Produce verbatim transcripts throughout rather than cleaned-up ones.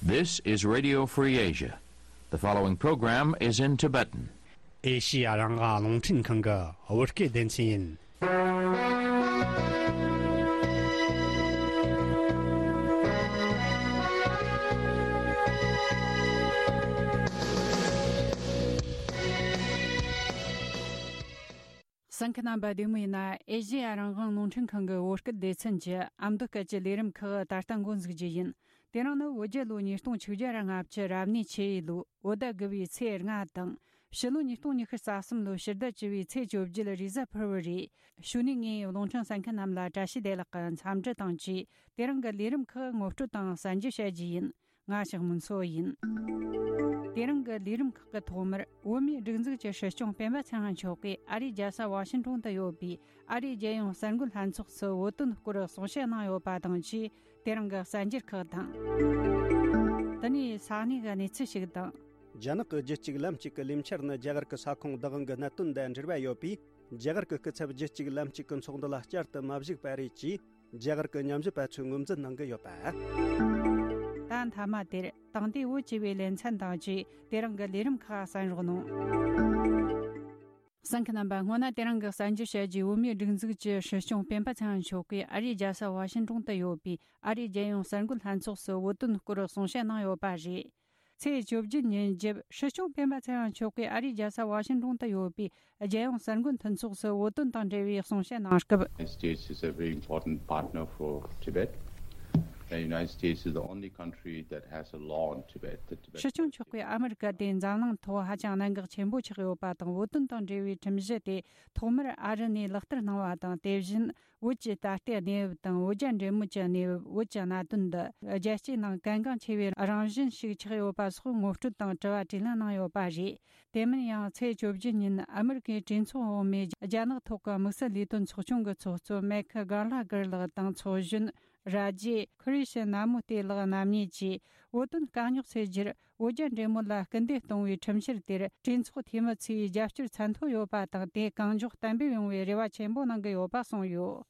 This is Radio Free Asia. The following program is in Tibetan. ཨེ་ཤི་ཡ་རང་དབང་རླུང་འཕྲིན་ཁང་གི་བོད་སྐད་སྡེ་ཚན་ཡིན། གསན་མཁན་རྣམ་པ་བདེ་མོ་ཡིན་ན། ཨེ་ཤི་ཡ་རང་དབང་རླུང་འཕྲིན་ཁང་གི་བོད་སྐད་སྡེ་ཚན་གྱི་ཨ་མདོ་སྐད་ཀྱི་ལས་རིམ་ཁག་ད་ལྟ་འགོ་འཛུགས་རྒྱུ་ཡིན། དེ་རིང་ནི་བོད་རྒྱལ་ལོ་ཉིས་སྟོང་ཆིག་བརྒྱ་ར་ལྔ་བཅུ་རབ་གནས་ཆུ་ཡོས་ལོའི་བོད་ཟླ་དགུ་བའི་ཚེས་ལྔ་དང་། ཕྱི་ལོ་ཉིས་སྟོང་ཉི་ཤུ་རྩ་གསུམ་ལོའི་ཕྱི་ཟླ་བཅུ་བའི་ཚེས་བཅོ་བརྒྱད་རེས་གཟའ་ཕུར་བུ་རེད། གཞུག་ནས་ངས་རླུང་འཕྲིན་གསན་མཁན་རྣམས་ལ་བཀྲ་ཤིས་བདེ་ལེགས་ཀྱི་འཚམས་འདྲི་དང་བཅས། དེ་རིང་གི་ལས་རིམ་ཁག་ངོ་སྤྲོད་དང་གསན་རྒྱུ་བྱ་རྒྱུ་ཡིན། ང་ཞག་མུན་སོ་ཡིན། དེ་རིང་གི་ལས་རིམ་ཁག་གི་ཐོག་མར་བོད་མིའི་སྒྲིག་འཛུགས་ཀྱི་སྲིད་སྐྱོང་སྤེན་པ་ཚེ་རིང་མཆོག་གིས་ཨ་རིའི་རྒྱལ་ས་ཝ་ཤིང་ཏོན་དུ་ཡོད་པའི་ཨ་རིའི་རྒྱལ་ཡོངས་གསར་འགོད་ལྷན་ཚོགས་སུ་བོད་དོན་སྐོར་གསུང་བཤད་གནང་ཡོད་པ་དང་བཅས། དེ་རིང་གི་གསར་འགྱུར་ཁག་དང་། དེ་ནས་ས་གནས་ཀྱི་གནས་ཚུལ་ཞིག་དང་། རྒྱ་ནག་གི་རྒྱུད་གཅིག་ལམ་གཅིག་གི་ལས་འཆར་ནི་རྒྱ་གར་གྱི་ས་ཁོངས་བདག་དབང་གི་གནད་དོན་དང་འབྲེལ་བ་ཡོད་པས། རྒྱ་གར་གྱི་སྐུ་ཚབ་རྒྱུད་གཅིག་ལམ་གཅིག་གི་ཚོགས་འདུ་ལ་བསྐྱར་དུ་མ་ཞུགས་པ་རེད་ཅེས་རྒྱ་གར་གྱི་ཉམས་ཞིབ་པ་ཚོས་ངོས་འཛིན་གནང་གི་ཡོད་པ། ད་མཐའ་མ་དེར་དེང་དུས་བོད་ཅེས་པའི་ལེ་ཚན་དང་བཅས་དེ་རིང་གི་ལས་རིམ་ཁག་གསན་རོགས་གནང་། གསན་མཁན་རྣམ་པ། སྔོན་ན་དེ་རིང་གི་གསར་འགྱུར་བཤད་རྒྱུའི་བོད་མིའི་སྒྲིག་འཛུགས་ཀྱི་སྲིད་སྐྱོང་སྤེན་པ་ཚེ་རིང་མཆོག་གིས་ཨ་རིའི་རྒྱལ་ས་ཝ་ཤིང་ཏོན་དུ་ཡོད་པའི་ཨ་རིའི་རྒྱལ་ཡོངས་གསར་འགོད་ལྷན་ཚོགས་སུ་བོད་དོན་སྐོར་གསུང་བཤད་གནང་ཡོད་པ་རེད། ཚེས་བཅོ་བརྒྱད་ཉིན་རྒྱབ། སྲིད་སྐྱོང་སྤེན་པ་ཚེ་རིང་མཆོག་གིས་ཨ་རིའི་རྒྱལ་ས་ཝ་ཤིང་ཏོན་དུ་ཡོད་པའི་རྒྱལ་ཡོངས་གསར་འགོད་མཐུན་ཚོགས་སུ་བོད་དོན་དང་འབྲེལ་བའི་གསུང་བཤད་གནང་སྐབས། United States is a very important partner for Tibet. The United States is the only country that has a law on Tibet. The Tibet སྲིད་སྐྱོང་མཆོག་གིས་ཨ་མི་རི་ཀ་དེ་འཛམ་གླིང་ཐོག་ཧ་ཅང་གནད་འགག་ཆེན་པོ་ཆགས་ཡོད་པ་དང་། བོད་དོན་དང་འབྲེལ་བའི་ཁྲིམས་གཞི་དེ་ཐོག་མར་ཨ་རི་ནས་ལག་བསྟར་གནང་བ་དང་། དེ་བཞིན་བོད་ཀྱི་ད་ལྟའི་གནས་བབ་དང་། བོད་རྒྱ་འབྲེལ་མོལ་གྱི་གནས་བབ། བོད་ཀྱི་གནད་དོན་འདི་རྒྱལ་སྤྱིའི་ནང་གལ་འགངས་ཆེ་བའི་རང་བཞིན་ཞིག་ཆགས་ཡོད་པ་སོགས་ངོ་སྤྲོད་དང་དྲི་བ་དྲིས་ལན་གནང་ཡོད་པ་རེད། དེ་མིན་ཡང་ཚེས་བཅོ་བརྒྱད་ཉིན་ཨ་མི་རི་ཀའི་གྲོས་ཚོགས་འོག་མའི་རྒྱ་ནག་ཐོག་གི་དམིགས་བསལ་ལས་དོན་ཚོགས་ཆུང་གི་ཚོགས་གཙོ་མེག་གྷ་ལ་གར་ལགས་དང་། ཚོགས་གཞོན་ར་ཇེ་ཁུ་རི་ཤི་ན་མུ་ཏེ་ལགས་རྣམ་གཉིས་ཀྱིས་བོད་དོན་དཀའ་རྙོག་སེལ་རྒྱུར་བོད་རྒྱ་འབྲེལ་མོལ་ལ་སྐུལ་འདེད་གཏོང་བའི་ཁྲིམས་འཆར་དེར་གྲོས་ཚོགས་འཐུས་མི་ཚོས་རྒྱབ་སྐྱོར་ཚད་མཐོ་ཡོད་པ་དང་། དེ་གང་མགྱོགས་གཏན་འབེབས་ཡོང་བའི་རེ་བ་ཆེན་པོ་གནང་གི་ཡོད་པ་གསུངས་ཡོད།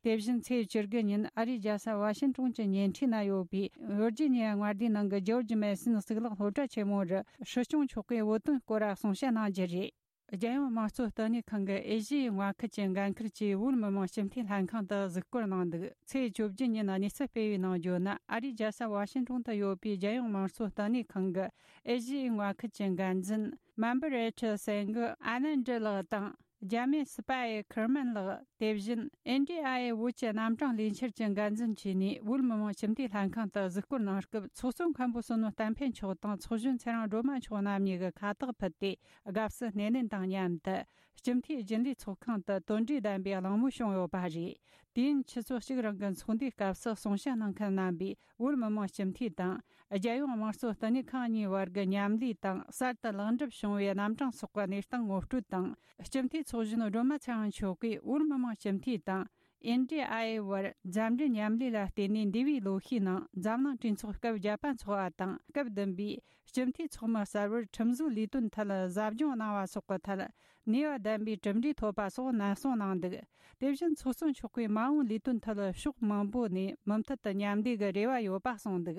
དེ་བཞིན་ཚེས་བཅུ་དགུ་ཉིན་ཨ་རིའི་རྒྱལ་ས་ཝ་ཤིང་ཏོན་གྱི་ཉེ་འཁྲིས་ན་ཡོད་པའི་ཝིར་ཇི་ནི་ཡ་མངའ་སྡེའི་ནང་གི་ཇོར་ཇི་མེ་སོན་གཙུག་ལག་སློབ་གྲྭ་ཆེན་མོར་སྲིད་སྐྱོང་མཆོག་གིས་བོད་དོན་སྐོར་གསུང་བཤད་གནང་རྒྱུ་རེད། རྒྱལ་ཡོངས་དམངས་གཙོ་བསྟི་གནས་ཁང་གི་ཨེ་ཤི་ཡའི་མངའ་ཁུལ་གྱི་འགན་འཁུར་གྱིས་བོད་མི་མང་སྤྱི་འཐུས་ལྷན་ཁང་དུ་གཟིགས་སྐོར་གནང་འདུག་ཚེས་བཅོ་བརྒྱད་ཉིན་གནས་ཚུལ་སྤེལ་བའི་ནང་བརྗོད་ན། ཨ་རིའི་རྒྱལ་ས་ཝ་ཤིང་ཏོན་དུ་ཡོད་པའི་རྒྱལ་ཡོངས་དམངས་གཙོ་བསྟི་གནས་ཁང་གི་ཨེ་ཤི་ཡའི་མངའ་ཁུལ་གྱི་འགན་འཛིན་མན་བུ་རེ་ཁྲི་སེང་གི་ཨ་ནན་ཏྲི་ལགས་དང་། རྒྱ་མི་སི་པ་ཨེ་ཁེར་མན་ལགས། དེ་བཞིན་ཨེན་ཌི་ཨའི་ཨེ་བོད་ཀྱི་རྣམ་གྲངས་ལས་འཆར་གྱི་འགན་འཛིན་བཅས་ནས་བོད་མི་མང་སྤྱི་འཐུས་ལྷན་ཁང་དུ་གཟིགས་སྐོར་གནང་སྐབས། ཚོགས་གཙོ་མཁན་པོ་བསོད་ནམས་བསྟན་འཕེལ་མཆོག་དང་ཚོགས་གཞོན་ཚེ་རིང་སྒྲོལ་མ་མཆོག་རྣམ་གཉིས་ཀྱིས་ཁ་བཏགས་ཕུལ་ཏེ། དགའ་བསུ་སྣེ་ལེན་དང་མཉམ་དུ་སྤྱི་འཐུས་རྒྱུན་ལས་ཚོགས་ཁང་དུ་དོན་འགྲོས་ལྡན་པའི་གླེང་མོལ་བྱུང་ཡོད་པ་རེད། དུས་ཡུན་ཆུ་ཚོད་གཅིག་རིང་གི་ཚོགས་འདུའི་སྐབས་སུ་གསུང་བཤད་གནང་མཁན་རྣམ་པས། བོད་མི་མང་སྤྱི་འཐུས་དང་། རྒྱལ་ཡོངས་དམངས་གཙོ་བསྟི་གནས་ཁང་གཉིས་བར་གྱི་མཉམ་ལས་དང་། གསར་དུ་ལེགས་འགྲུབ་བྱུང་བའི་རྣམ་གྲངས་སོགས་ཀྱི་གནས་སྟངས་ངོ་སྤྲོད་དང་། སྤྱི་འཐུས་ཚོགས་གཞོན་སྒྲོལ་མ་ཚེ་རིང་མཆོག་གིས་བོད་མི་མང་སྤྱི་འཐུས་དང་། ཨེན་ཌི་ཨའི་ཨེ་བར་མཛའ་འབྲེལ་མཉམ་ལས་ལ་བརྟེན་ནས། འདས་པའི་ལོ་ཤས་ནང་འཛམ་གླིང་གྲོས་ཚོགས་སྐབས་བརྒྱད་པ་འཚོགས་པ་དང་། སྐབས་བདུན་པའི་སྤྱི་འཐུས་ཚོགས་མི་གསར་བར་ཁྲིམས་བཟོའི་ལས་དོན་ཐད་གཟབ་སྦྱོང་གནང་བ་སོགས་ཀྱི་ཐད། ནུས་པ་ལྡན་པའི་གྲུབ་འབྲས་ཐོབ་པ་སོགས་ནན་གསུང་གནང་འདུག་དེ་བཞིན་ཚོགས་གཙོ་མཆོག་གིས་མ་འོངས་ལས་དོན་ཐད་ཕྱོགས་མང་པོ་ནས་མུ་མཐུད་དུ་མཉམ་ལས་ཀྱི་རེ་བ་ཡོད་པ་གསུངས་འདུག་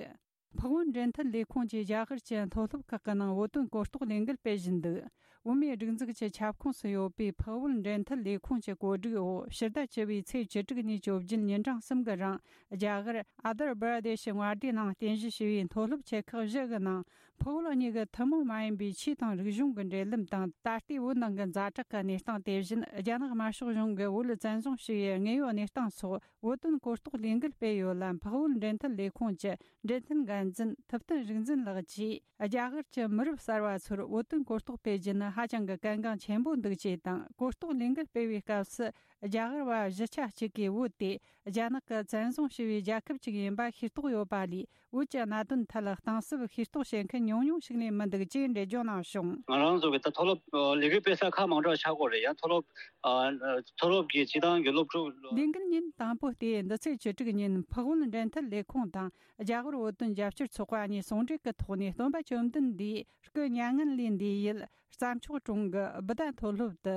འཕགས་བོད་འབྲེལ་མཐུད་ལས་ཁུངས་ཀྱིས་རྒྱ་གར་གྱི་མཐོ་སློབ་ཁག་གི་ནང་བོད་དོན་གོ་རྟོགས་ལས་འགུལ་སྤེལ་བཞིན་འདུག་བོད་མིའི་སྒྲིག་འཛུགས་ཀྱི་ཁྱབ་ཁོངས་སུ་ཡོད་པའི་འཕགས་བོད་འབྲེལ་མཐུད་ལས་ཁུངས་ཀྱི་བཀོད་སྒྲིག་འོག་ཕྱི་ཟླ་བཅུ་བའི་ཚེས་བཅུ་དྲུག་ནས་བཅོ་བརྒྱད་ཉིན་གྲངས་གསུམ་གྱི་རིང་རྒྱ་གར་ཨ་དར་བྷ་ར་དེ་ཤི་མངའ་སྡེའི་ནང་རྟེན་གཞི་བྱས་པའི་མཐོ་སློབ་ཆེ་ཁག་བཞི་གི་ནང་། འཕགས་བོད་གཉིས་ཀྱི་ཐུན་མོང་མ་ཡིན་པའི་ཆོས་དང་རིག་གཞུང་གི་འབྲེལ་ལམ་དང་། ད་ལྟའི་བོད་ནང་གི་ཛ་དྲག་གི་གནས་སྟངས། དེ་བཞིན་རྒྱ་ནག་དམར་ཤོག་གཞུང་གིས་བོད་བཙན་བཟུང་བྱས་པའི་དངོས་ཡོད་གནས་སྟངས་སོགས་བོད་དོན་གོ་རྟོགས་ལས་འགུལ་སྤེལ་ཡོད་ལ། འཕགས་བོད་འབྲེལ་མཐུད་ལས་ཁུངས་ཀྱི་འབྲེལ་མཐུད་འགན་འཛིན་ཐུབ་བསྟན་རིག་འཛིན་ལགས་ཀྱིས། རྒྱ་གར་གྱི་མི་རབས་གསར་བ་ཚོར་བོད་དོན་གོ་རྟོགས་སྤེལ་རྒྱུ་ནི་ཧ་ཅང་གི་གལ་འགངས་ཆེན་པོ་འདུག་ཅེས་དང་། གོ་རྟོགས་ལས་འགུལ་སྤེལ་བའི་སྐབས་སུ། རྒྱ་གར་བ་གཞིས་ཆགས་གཅིག་གིས་བོད་དེ་རྒྱ་ནག་གིས་བཙན་བཟུང་བྱས་པའི་རྒྱལ་ཁབ་ཅིག་ཡིན་པ་ཤེས་རྟོགས་ཡོད་པ་ལས། བོད་ཀྱི་གནད་དོན་ཐད་གཏིང་ཟབ་ཤེས་རྟོགས་བྱེད་མཁན་ཉུང་ཉུང་ཞིག་ལས་མི་འདུག་ཅེས་འགྲེལ་བརྗོད་གནང་བྱུང་། ང་རང་ཚོ་གི་ད་མཐོ་སློབ་ཨ་ལས་འགུལ་སྤེལ་ས་ཁག་མང་དྲགས་ཆགས་ཀྱི་ཡོད་རེད། ཡང་མཐོ་སློབ་ཨ་མཐོ་སློབ་ཀྱི་སྤྱི་བཏང་གི་སློབ་ཕྲུག་ལས་འགུལ་ཉིན་དང་པོ་སྟེ། འདི་ཚེས་བཅུ་དྲུག་ཉིན་འཕགས་བོད་འབྲེལ་མཐུད་ལས་ཁུངས་དང་རྒྱ་ཧོར་བོད་དོན་རྒྱབ་སྐྱོར་ཚོགས་པ་གཉིས་ཟུང་འབྲེལ་གྱི་ཐོག་ནས་སྟོན་པ་བཅོམ་ལྡན་འདས་སྐུ་མྱ་ངན་ལས་འདས་ཡུལ་བརྩམས་ ཕྱོགས་གྲོང་གི་སྦི་ཏ་མཐོ་སློབ་ཏུ་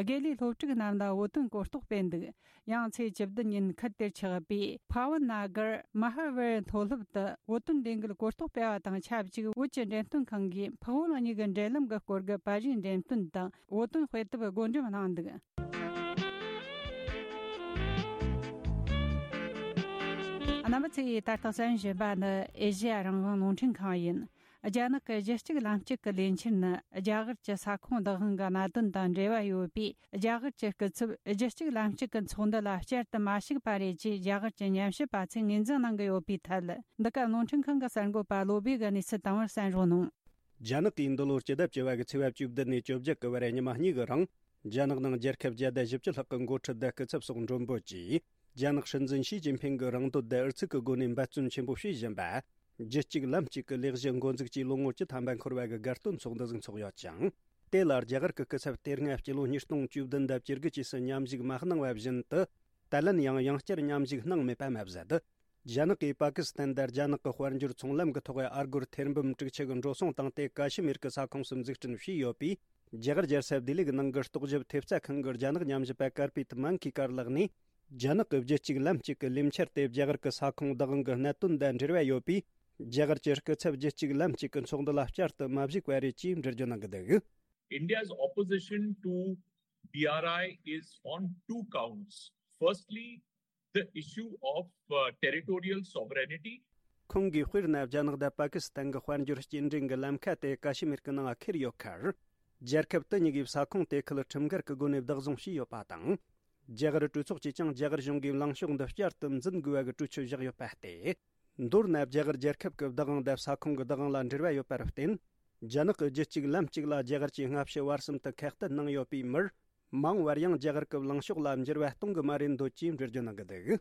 དགེ་ལས་སློབ་ཕྲུག་རྣམས་ལ་བོད་དོན་གོ་རྟོགས་སྤེལ་འདུག། ཡང་ཚེས་བཅུ་བདུན་ཉིན་ཁུལ་དེར་ཆགས་པའི་ཕ་ཝན་ན་གར་མ་ཧ་ཝེར་མཐོ་སློབ་ཏུ་བོད་དོན་ལས་འགུལ་གོ་རྟོགས་སྤེལ་བ་དང་ཆབས་ཅིག་བོད་ཀྱི་འགྲེམས་སྟོན་ཁང་གིས་འཕགས་བོད་གཉིས་ཀྱི་འབྲེལ་ལམ་གྱི་སྐོར་གྱི་པར་རིས་འགྲེམས་སྟོན་དང་བོད་དོན་དཔེ་དེབ་བགོ་འགྲེམས་གནང་འདུག། རྣམ་པ་ཚོས་ད་ལྟ་གསན་བཞིན་པ་ནི་ཨེ་ཤེ་ཡ་རང་དབང་རླུང་འཕྲིན་ཁང་ཡིན། རྒྱ་ནག་གི་རྒྱུད་གཅིག་ལམ་གཅིག་གི་ལས་འཆར་ནི་རྒྱ་གར་གྱི་ས་ཁོངས་བདག་དབང་གི་གནད་དོན་དང་འབྲེལ་བ་ཡོད་པས། རྒྱ་གར་གྱི་སྐུ་ཚབ་རྒྱུད་གཅིག་ལམ་གཅིག་གི་ཚོགས་འདུ་ལ་བསྐྱར་དུ་མ་ཞུགས་པ་རེད་ཅེས་རྒྱ་གར་གྱི་ཉམས་ཞིབ་པ་ཚོས་ངོས་འཛིན་གནང་གི་ཡོད་པའི་ཐད། འདི་ག་རླུང་འཕྲིན་ཁང་གི་གསར་འགོད་པ་བློ་བྷེ་གིས་གནས་ཚུལ་དང་པོར་གསན་རོགས་གནང་། རྒྱ་ནག་གིས་འདི་ལོར་སྤྱི་ཟླ་བཅུ་བ་གི་ཚེས་པ་བཅུ་བདུན་ནས་བཅོ་བརྒྱད་གི་བར་ཉི་མ་གཉིས་གི་རིང་། རྒྱ་ནག་ནང་རྒྱལ་ཁབ་བརྒྱ་དང་བཞི་བཅུ་ལྷག་གི་འགོ་ཁྲིད་དང་སྐུ་ཚབ་སོགས་མགྲོན་འབོད་ཀྱིས། རྒྱ་ནག་སྲིད་འཛིན་ཞི་ཅིན་ཕིང་གི་རང་འདོད་དང་ཨུ་ཚུགས་ཀྱི་སྒོ་ནས་འབད་བརྩོན་ཆེན་པོ་བྱེད་བཞིན་པ། རྒྱུད་གཅིག་ལམ་གཅིག་གི་ལས་གཞི་འགོ་འཛུགས་ཀྱིས་ལོ་ངོ་བཅུ་ཐམ་པ་འཁོར་བ་གི་དགའ་སྟོན་ཚོགས་འདུ་ཟིག་འཚོགས་ཡོད་ཅིང་། དེ་ལ་རྒྱ་གར་གྱི་སྐུ་ཚབ་དེ་སྔ་སྤྱི་ལོ་ཉིས་སྟོང་བཅུ་བདུན་དང་བཅུ་དགུ་བཅས་སུ་མཉམ་ཞུགས་མ་གནང་བ་བཞིན་དུ། ད་ལན་ཡང་ཡང་བསྐྱར་མཉམ་ཞུགས་གནང་མེད་པ་མ་ཟད། རྒྱ་ནག་གིས་པ་ཀི་སི་ཐན་དང་རྒྱ་ནག་གི་དཔལ་འབྱོར་ཚོང་ལམ་གྱི་ཐོག་ཨ་སྒོར་ཐེར་འབུམ་དྲུག་ཅུ་གི་འགྲོ་སོང་བཏང་སྟེ་ཀ་ཤི་མིར་གྱི་ས་ཁོངས་སུ་འཛུགས་སྐྲུན་བྱས་ཡོད་པས། རྒྱ་གར་རྒྱལ་ས་ལྡི་ལི་གི་ནང་གི་རྟོག་ཞིབ་ཐེབས་རྩ་ཁང་གི་རྒྱ་ནག་ཉམས་ཞིབ་པ་ཀར་པེད་མན་ཁི་ཀར་ལགས་ནས། རྒྱ་ནག་གི་རྒྱུད་གཅིག་ལམ་གཅིག་གི་ལས་འཆར་དེ་རྒྱ་གར་གྱི་ས་ཁོངས་བདག་དབང་གི་གནད་དོན་དང་འབྲེལ་བ་ཡོད་པས། རྒྱ་གར་གྱི་སྐུ་ཚབ་རྒྱུད་གཅིག་ལམ་གཅིག་གི་ཚོགས་འདུ་ལ་བསྐྱར་དུ་མ་ཞུགས་པ་རེད་ཅེས་འགྲེལ་བརྗོད་གནང་གི་འདུག། India's opposition to B R I is on two counts. Firstly, the issue of uh, territorial sovereignty. ཁོང་གིས་དཔེར་ན་རྒྱ་ནག་དང་པ་ཀི་སི་ཐན་གྱི་དཔལ་འབྱོར་སྐྱེལ་འདྲེན་གྱི་ལམ་ཁ་དེ་ཀ་ཤི་མིར་གྱི་ནང་ཁུར་ཡོད་ཁར། རྒྱལ་ཁབ་དེ་གཉིས་ཀྱིས་ས་ཁོངས་དེ་ཁུལ་ཁྲིམས་འགལ་གྱི་སྒོ་ནས་བདག་བཟུང་བྱས་ཡོད་པ་དང་། རྒྱ་གར་གྲོས་ཚོགས་ཀྱིས་ཀྱང་རྒྱ་གར་གཞུང་གིས་ལངས་ཕྱོགས་འདི་བསྐྱར་དུ་འཛིན་དགོས་པ་གི་གྲོས་ཆོད་བཞག་ཡོད་པ་སྟེ། མདོར་ན་རྒྱ་གར་རྒྱལ་ཁབ་ཀྱི་བདག་དབང་དང་ས་ཁོངས་ཀྱི་བདག་དབང་ལ་འབྲེལ་བ་ཡོད་པར་བརྟེན། རྒྱ་ནག་གི་རྒྱུད་གཅིག་ལམ་གཅིག་ལ་རྒྱ་གར་གྱིས་སྔ་ཕྱི་བར་གསུམ་དུ་ཁ་གཏད་གནང་ཡོད་པའི་མིར། མ་འོངས་པར་ཡང་རྒྱ་གར་གྱི་ལངས་ཕྱོགས་ལ་འགྱུར་བ་གཏོང་གི་མ་རེད་འདོད་ཅེས་འགྲེལ་བརྗོད་གནང་གི་འདུག།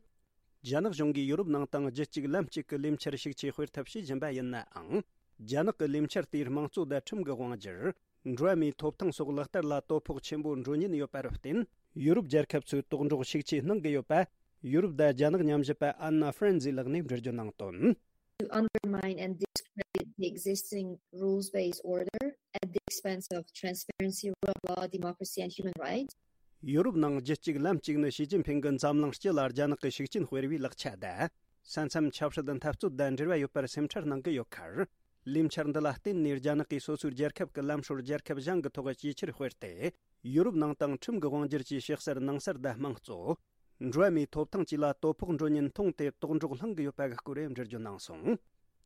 རྒྱ་ནག་གཞུང་གིས་ཡོ་རོབ་ནང་དང་རྒྱུད་གཅིག་ལམ་གཅིག་གི་ལས་འཆར་ཤུགས་ཆེ་སྤེལ་ཐབས་བྱེད་བཞིན་པ་ཡིན་ནའང་། རྒྱ་ནག་གི་ལས་འཆར་དེས་དམངས་གཙོ་དང་ཁྲིམས་ཀྱི་དབང་སྒྱུར། འགྲོ་བ་མིའི་ཐོབ་ཐང་སོགས་ལག་བསྟར་ལ་དོ་ཕོག་ཆེན་པོ་འགྲོ་ཉེན་ཡོད་པར་བརྟེན། ཡོ་རོབ་རྒྱལ་ཁབ་ཚོས་དོགས་འདྲོག་ཤུགས་ཆེ་གནང་གི་ཡོད་པ། ཡོ་རོབ་དང་རྒྱ་ནག་ཉམས་ཞིབ་པ་ཨན་ན་ཧྥ་རན་ཛི་ལགས་ནས་འགྲེལ་བརྗོད་གནང་དོན། To undermine and discredit the existing rules-based order at the expense of transparency, rule of law, democracy, and human rights. ཡོ་རོབ་ནང་རྒྱུད་གཅིག་ལམ་གཅིག་ནི་ཞི་ཅིན་ཕིང་གི་འཛམ་གླིང་སྤྱི་ལ་རྒྱ་ནག་གི་ཤུགས་རྐྱེན་སྤེལ་བའི་ལག་ཆ་དང་། ས་མཚམས་ཆབ་སྲིད་འཐབ་རྩོད་དང་འབྲེལ་བ་ཡོད་པར་སེམས་ཁྲལ་གནང་གི་ཡོད་ཁར། ལས་འཆར་འདི་ལ་བརྟེན་ནས་རྒྱ་ནག་གིས་སོ་སོའི་རྒྱལ་ཁབ་ཀྱི་ལམ་སྲོལ་རྒྱལ་ཁབ་གཞན་གྱི་ཐོག་ཇེ་ཆེར་སྤེལ་ཏེ། ཡོ་རོབ་ནང་དང་ཁྲིམས་ཀྱི་དབང་སྒྱུར་གྱི་ཕྱི་གསར་ནང་གསར་དང་དམངས་གཙོ། འགྲོ་བ་མིའི་ཐོབ་ཐང་བཅས་ལ་དོ་ཕོག་འགྲོ་ཉེན་མཐོང་སྟེ་དོགས་འདྲོག་ལྷང་གི་ཡོད་པ་གི་སྐོར་འགྲེལ་བརྗོད་གནང་སོང་།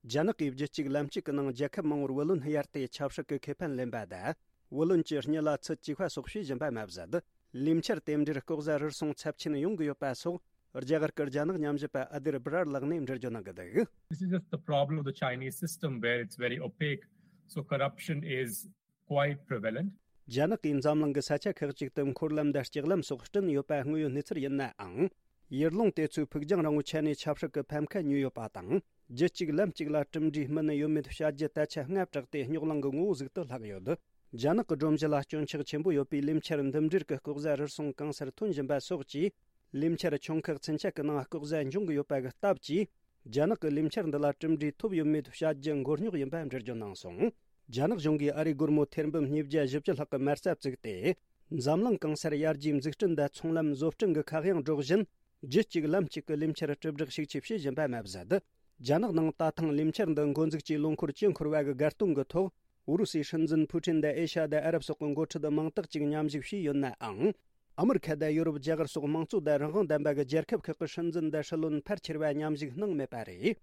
རྒྱ་ནག་གིས་རྒྱུད་གཅིག་ལམ་གཅིག་གི་ནང་རྒྱལ་ཁབ་མང་བོར་བུ་ལོན་གཡར་ཏེ་ཆབ་སྲིད་ཀྱི་ཁེ་ཕན་ལེན་པ་དང་། བུ་ལོན་གྱི་སྙི་ལ་ཚུར་བཅུག་པ་སོགས་བྱེད་བཞིན་པ་མ་ཟད། ལས་འཆར་དེ་འདྲའི་ལྐོག་ཟ་རུལ་སུངས་ཚབས་ཆེན་ཡོང་གི་ཡོད་པ་སོགས། རྒྱ་གར་གྱི་རྒྱ་ནག་ཉམས་ཞིབ་པ་ཨ་དིར་སྦི་རར་ལགས་ནས་འགྲེལ་བརྗོད་གནང་གི་འདུག། This is just the problem of the Chinese system where it's very opaque. So corruption is quite prevalent. རྒྱ་ནག་གིས་འཛམ་གླིང་གི་ས་ཆ་ཁག་ཅིག་ཏུ་འཁོར་ལམ་དང་ལྕགས་ལམ་སོགས་བསྐྲུན་ཡོད་པ་དངོས་ཡོད་གནས་ཚུལ་ཡིན་ནའང་། ཡུལ་ལུང་དེ་ཚོའི་ཕུགས་རྒྱང་རིང་བོའི་ཆ་ནས་ཆབ་སྲིད་ཀྱི་ཕམ་ཁ་ཉོས་ཡོད་པ་དང་། རྒྱུད་གཅིག་ལམ་གཅིག་ལ་གྲུབ་འབྲས་སྨིན་ནི་ཡོད་མེད་བྱ་རྒྱུ་ད་ཆ་སྔ་དྲགས་ཏེ་རྙོག་གླེང་གི་ངོ་བོ་ཟིག་ཏུ་ལྷག་ཡོད། རྒྱ་ནག་གི་སྒྲོམ་གཞི་ལ་སྐྱོན་ཆག་ཆེན་པོ་ཡོད་པའི་ལས་འཆར་འདི་འདྲའི་གི་ལྐོག་ཟ་རུལ་སུངས་གང་སར་ཐོན་བཞིན་པ་སོགས་ཀྱིས། ལས་འཆར་ཆུང་ཁག་ཚུན་ཆད་ཀྱི་ནང་ལྐོག་ཟ་འབྱུང་གི་ཡོད་པ་གི་སྟབས་ཀྱིས། རྒྱ་ནག་གི་ལས་འཆར་འདི་ལ་གྲུབ་འབྲས་ཐོབ་ཡོད་མེད་བྱ་རྒྱུ་མགོ་རྙོག་ཡིན་པ་འགྲེལ་བརྗོད་གནང་སོང་། རྒྱ་ནག་གཞུང་གིས་ཨ་རིའི་སྒོར་མོ་ཐེར་འབུམ་ཉིས་བརྒྱ་བཞི་བཅུ་ལྷག་གི་མ་རྩ་བཙུགས་ཏེ། འཛམ་གླིང་གང་སར་ཡར་རྒྱས་འཛུགས་སྐྲུན་དང་ཚོང་ལམ་བཟོ་སྐྲུན་གྱི་ཁ་གཡང་སྒྲོག་བཞིན། རྒྱུད་གཅིག་ལམ་གཅིག་གི་ལས་འཆར་དྲིལ་བསྒྲགས་ཤུགས་ཆེ་བྱེད་བཞིན་པ་མ་ཟད། རྒྱ་ནག་ནང་ད་ཐེངས་ལས་འཆར་འདི་འགོ་འཛུགས་ཀྱིས་ལོ་འཁོར་བཅུ་འཁོར་བ་གི་དགའ་སྟོན་གྱི་ཐོག་ཨུ་རུ་སུའི་སྲིད་འཛིན་ཕུ་ཀྲིན་དང་ཨེ་ཤ་ཡ་དང་ཨ་རབ་སོགས་ཀྱི་འགོ་ཁྲིད་མང་དག་ཅིག་མཉམ་ཞུགས་བྱས་ཡོད་ནའང་། ཨ་མི་རི་ཁ་དང་ཡོ་རོབ། རྒྱ་གར་སོགས་དམངས་གཙོ་དང་རང་དབང་ལྡན་པ་གི་རྒྱལ་ཁབ་ཁག་གི་སྲིད་འཛིན་དང་སྲིད་བློན་ཕལ་ཆེ་བ་མཉམ་ཞུགས་གནང་མེད་པ་རེད།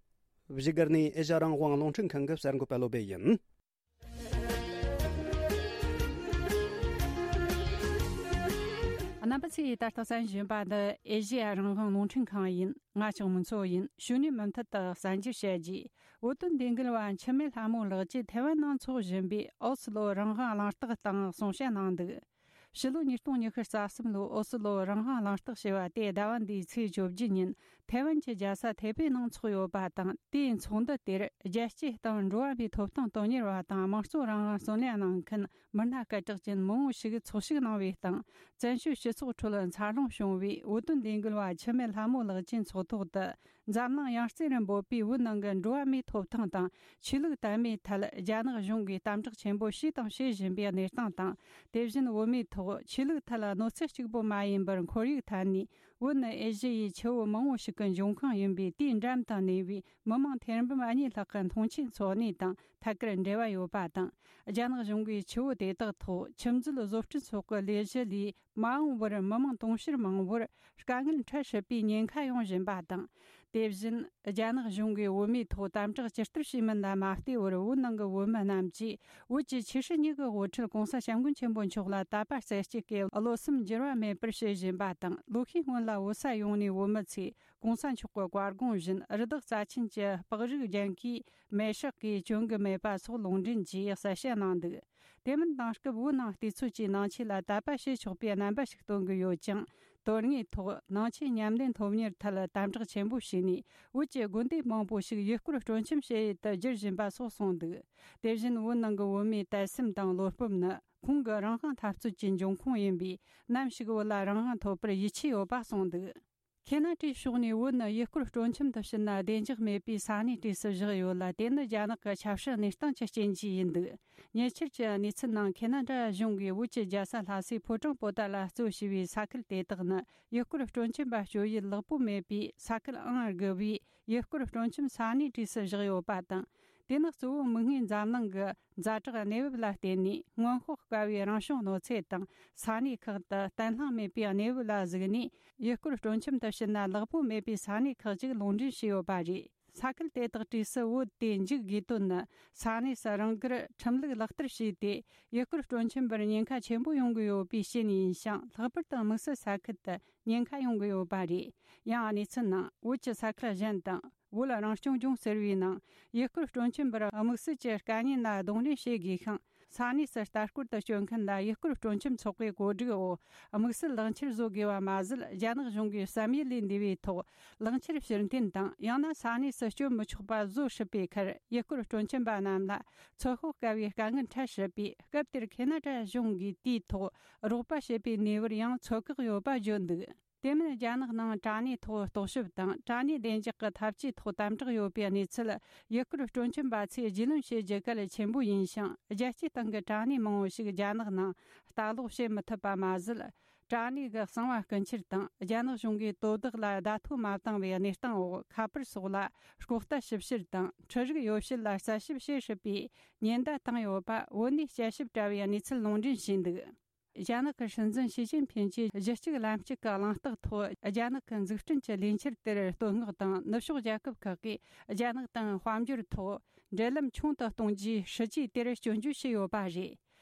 བཞུགས་སྒར་ནས་ཨེ་ཤ་རང་དབང་རླུང་འཕྲིན་ཁང་གི་གསར་འགོད་པ་བློ་བྷེ་ཡིན། རྣམ་པ་ཚོས་ད་ལྟ་གསན་བཞིན་པ་ནི་ཨེ་ཤེ་ཡ་རང་དབང་རླུང་འཕྲིན་ཁང་ཡིན། ང་ལྕགས་མོ་མཚོ་ཡིན། ཞུ་ནས་མུ་མཐུད་དུ་གསར་འགྱུར་བཤད་རྒྱུ། བོད་དོན་འདི་འགུལ་བ་འཆི་མེད་ལྷ་མོ་ལགས་ཀྱིས་ཐའེ་ཝན་ནང་འཚོགས་བཞིན་པའི་ཨོ་སི་ལོ་རང་དབང་གླེང་སྟེགས་སྟེང་གསུང་བཤད་གནང་འདུག། ཕྱི་ལོ་ཉིས་སྟོང་ཉི་ཤུ་རྩ་གསུམ་ལོའི་ཨོ་སི་ལོ་རང་དབང་གླེང་སྟེགས་ཞེས་པ་དེ་ཟླ་བ་འདིའི་ཚེས་བཅོ་བརྒྱད་ཉིན་ ཐའེ་ཝན་གྱི་རྒྱལ་ས་ཐའེ་པེ་ནང་འཚོགས་ཡོད་པ་དང་། དེའི་ཚོགས་འདུ་དེར་རྒྱལ་སྤྱིའི་སྟེང་འགྲོ་བ་མིའི་ཐོབ་ཐང་དོན་གཉེར་བ་དང་། དམངས་གཙོ་རང་དབང་གསུང་ལས་གནང་མཁན་མི་སྣ་སྐད་གྲགས་ཅན་མང་བོ་ཞིག་ཚོགས་ཞུགས་གནང་བའི་སྟེང་། བཙན་བྱོལ་སྤྱི་ཚོགས་ཁྲོད་འཚར་ལོངས་བྱུང་བའི་བོད་དོན་ལས་འགུལ་བ་འཆི་མེད་ལྷ་མོ་ལགས་ཀྱི་ཚོགས་ཐོག་ཏུ། འཛམ་གླིང་ཡང་རྩེ་རུ་འབོད་པའི་བོད་ནང་གི་འགྲོ་བ་མིའི་ཐོབ་ཐང་དང་ཆོས་ལུགས་དད་མོས་ཐད་རྒྱ་ནག་གཞུང་གིས་དམ་དྲག་ཆེན་པོ་བྱས་དང་བྱེད་བཞིན་པའི་གནས་སྟངས་དང་། དེ་བཞིན་བོད་མིའི་ཐོག་ཆོས་ལུགས་ཐད་གནོད་འཚེ་གཅིག་པུ་མ་ཡིན་པར་ཁོར་ཡུག་ཐད་ནས་བོད་ནི་ཨེ་ཤི་ཡའི་ཆུ་བོ་མང་བོ་ཞིག་གི་འབྱུང་ཁུངས་ཡིན་པའི་དེའི་འགྲམ་དུ་གནས་པའི་མི་མང་ཐེར་འབུམ་གཉིས་ལྷག་གི་མཐོང་ཆེན་འཚོགས་གནས་དང་ཐད་ཀར་འབྲེལ་བ་ཡོད་པ་དང་། རྒྱ་ནག་གཞུང་གིས་ཆུ་བོ་དེ་དག་ཐོག་ཆུ་མཛོད་བཟོ་སྐྲུན་སོགས་ཀྱི་ལས་གཞི་ལས། མ་འོངས་པར་མི་མང་དུང་ཕྱུར་མང་བོར་དཀའ་ངལ་འཕྲད་སྲིད་པའི་ཉེན་ཁ་ཡོང་བཞིན་པ་དང་། དེ་བཞིན་རྒྱ་ནག་གཞུང་གིས་བོད་མིའི་ཐོག་དམ་དྲག་ཇི་ལྟར་བྱས་མིན་ལ་མ་ལྟོས་པར། བོད་ནང་གི་བོད་མི་རྣམས་ཀྱིས་བོད་ཀྱི་ཆེ་ཧྲི་གཉིས་ཀྱི་དབུ་ཁྲིད་༸གོང་ས་༸སྐྱབས་མགོན་ཆེན་པོ་མཆོག་ལ་དད་པ་རྩེ་གཅིག་གིས་བློ་སེམས་འགྱུར་བ་མེད་པར་བྱེད་བཞིན་པ་དང་། ལོ་ཤས་སྔོན་ལ་བོད་ས་ཡོངས་ནས་བོད་མི་ཚོས་༸གོང་ས་མཆོག་གི་བཀའ་དགོངས་བཞིན་རི་དྭགས་རྩ་ཆེན་གྱི་སྤགས་རིགས་ལྗང་ཁུའི་མེ་སྲེག་གིས་གྱོན་གྱི་མེད་པ་སོགས་ལུང་འདྲེན་གྱིས་གསལ་བཤད་གནང་འདུག་དེ་མིན་དེང་སྐབས་བོད་ནང་བལྟས་ཚོད་ཀྱིས་ནང་ཆོས་ལ་དད་པ་བྱེད་ཆོག་པའི་རྣམ་པ་ཞིག་སྟོན་གྱི་ཡོད་ཅིང་། དོན་དངོས་ཐོག་ནང་ཆོས་ཉམས་ལེན་སློབ་གཉེར་ཐད་དམ་དྲག་ཆེན་པོ་བྱས་ནས། བོད་ཀྱི་དགོན་སྡེ་མང་པོ་ཞིག་ཡུལ་སྐོར་སྤྲོ་འཆམ་བྱེད་ཡུལ་དུ་བསྒྱུར་བཞིན་པ་སོགས་གསུངས་འདུག་དེ་བཞིན་བོད་ནང་གི་བོད་མིའི་དད་སེམས་དང་བློ་སྤོབས་ནི་ཁོང་གི་རང་དབང་འཐབ་རྩོད་ཀྱི་འབྱུང་ཁུངས་ཡིན་པས། ནམ་ཞིག་བོད་ལ་རང་དབང་ཐོབ་པར་ཡིད་ཆེས་ཡོད་པ་གསུངས་འདུག་ཁེ་ན་ཌའི་ཕྱོགས་ནས་བོད་ནི་ཡུལ་སྐོར་སྤྲོ་འཆམ་དུ་ཕྱིན་ན་བདེ་འཇགས་མེད་པའི་ས་གནས་གྲས་སུ་བཞག་ཡོད་ལ། དེ་ནི་རྒྱ་ནག་གི་ཆབ་སྲིད་གནས་སྟངས་ཀྱི་རྐྱེན་གྱིས་ཡིན་འདུག་ཉེ་ཆར་གྱི་གནས་ཚུལ་ནང་། ཁེ་ན་ཌ་གཞུང་གིས་བོད་ཀྱི་རྒྱལ་ས་ལྷ་སའི་ཕོ་བྲང་པོ་ཏཱ་ལ་གཙོ་བྱས་པའི་ས་ཁུལ་དེ་དག་ནི་ཡུལ་སྐོར་སྤྲོ་འཆམ་པ་སྤྱོད་ཡུལ་ལེགས་པོ་མེད་པའི་ས་ཁུལ་ཨང་དགུ་པའི་ཡུལ་སྐོར་སྤྲོ་འཆམ་ས་གནས་གྲས་སུ་བཞག་ཡོད་པ་དང་། དེ་ནི་གཙོ་བོ་མིག་སྔའི་འཛམ་གླིང་གི་ཛ་དྲག་གནས་བབ་ལ་བརྟེན་ནས། སྔོན་དཔག་དཀའ་བའི་རང་བྱུང་གནོད་འཚེ་དང་ས་གནས་ཁག་ཏུ་བརྟན་ལྷིང་མེད་པའི་གནས་བབ་ལ་གཟིགས་ནས། ཡུལ་སྐོར་སྤྲོ་འཆམ་དུ་ཕྱིན་ན་ལེགས་པོ་མེད་པའི་ས་གནས་ཁག་ཅིག་ལུང་འདྲེན་བྱས་ཡོད་པ་རེད། ས་ཁུལ་དེ་དག་གྲས་སུ་བོད་དེ་འཇུག་དགོས་དོན་ནི། ས་གནས་སུ་རང་དགར་ཁྲིམས་ལུགས་ལག་བསྟར་བྱས་ཏེ། ཡུལ་སྐོར་སྤྲོ་འཆམ་པར་ཉེན་ཁ་ཆེན་པོ་ཡོང་གི་ཡོད་པའི་རྐྱེན་ཡིན་ཞིང་། ལྷག་པར་དུ་དམིགས་བསལ་ས་ཁུལ་དུ་ཉེན་ཁ་ཡོང་གི་ཡོད་པ་རེད། ཡང་གནས་ཚུལ་ནང་། བོད་ཀྱི་ས་ཁུལ་གཞན་དང་། བོད་རང་སྐྱོང་ལྗོངས་ཟེར་བའི་ནང་། ཡུལ་སྐོར་སྤྲོ་འཆམ་པར་དམིགས་བསལ་གྱི་དཀའ་ཉེན་ལ་གདོང་ལེན་བྱེད་དགོས་ཤིང་། ས་གནས་སུ་ལྟ་སྐོར་དུ་སྐྱོད་མཁན་ལ་ཡུལ་སྐོར་སྤྲོ་འཆམ་ཚོགས་པའི་གོ་སྒྲིག་འོག་དམིགས་བསལ་ལག་འཁྱེར་བཟོ་དགོས་པ་མ་ཟད། རྒྱ་ནག་གཞུང་གིས་བསམ་ཡུལ་ལས་འདས་པའི་ཐོག་ལག་འཁྱེར་ཕྱིར་འཐེན་དང་། ཡང་ན་ས་གནས་སུ་སྐྱོད་མི་ཆོག་པ་བཟོ་སྲིད་པའི་ཁར། ཡུལ་སྐོར་སྤྲོ་འཆམ་པ་རྣམས་ལ་ཚོད་དཔག་དཀའ་བའི་དཀའ་ངལ་འཕྲད་སྲིད་པས། སྐབས་དེར་ཁེ་ན་ཌ་གཞུང་གིས་དེའི་ཐོག་རོགས་པ་བྱེད་པའི་ནུས་པར་ཡང་ཚོད་བཀག་ཡོད་པ་བརྗོད་འདུག་དེ་མིན། རྒྱ་ནག་ནང་དྲ་གནས་ཐོག་རྟོག་ཞིབ་དང་། དྲ་གནས་བདེ་འཇགས་ཀྱི་ཐབས་ཇུས་ཐོག་དམ་དྲག་ཡོད་པའི་གནས་ཚུལ། ཡུལ་སྐོར་སྤྲོ་འཆམ་པ་ཚོས་རྒྱུས་ལོན་བྱེད་རྒྱུ་གལ་ཆེན་པོ་ཡིན་ཞིང་། རྒྱལ་སྤྱིའི་སྟེང་གི་དྲ་གནས་མང་བོ་ཞིག་རྒྱ་ནག་ནང་ལྟ་ཀློག་བྱེད་མི་ཐུབ་པ་མ་ཟད། དྲ་གནས་ཀྱི་གསང་བ་རྐུ་འཁྱེར་དང་། རྒྱ་ནག་གཞུང་གིས་དོ་བདག་ལ་བརྡ་ཐོ་མ་བཏང་བའི་གནས་སྟངས་འོག་ཁ་པར་སོགས་ལ་ལྐོག་ལྟ་ཞིབ་བཤེར་དང་། འཕྲུལ་རིག་ཡོ་བྱད་ལ་རྩད་ཞིབ་བྱེད་སྲིད་པའི་ཉེན་བརྡ་བཏང་ཡོད་པ། བོད་ནས་དཔྱད་ཞིབ་བྱས་པའི་གནས་ཚུལ་ལུང་འདྲེན་བྱས་འདུག་རྒྱ་ནག་གི་སྲིད་འཛིན་ཞི་ཅིན་ཕིན་གྱིས་གཞི་གཅིག་ལམ་གཅིག་གི་གླེང་སྟེགས་ཐོག་རྒྱ་ནག་གི་འཛུགས་སྐྲུན་གྱི་ལས་འཆར་དེར་བསྟོད་བསྔགས་དང་། ནུབ་ཕྱོགས་རྒྱལ་ཁབ་ཁག་གིས་རྒྱ་ནག་དང་དཔལ་འབྱོར་ཐོག་འབྲེལ་ལམ་ཆུང་དུ་གཏོང་རྒྱུའི་སྲིད་ཇུས་དེར་སྐྱོན་བརྗོད་བྱས་ཡོད་པ་རེད།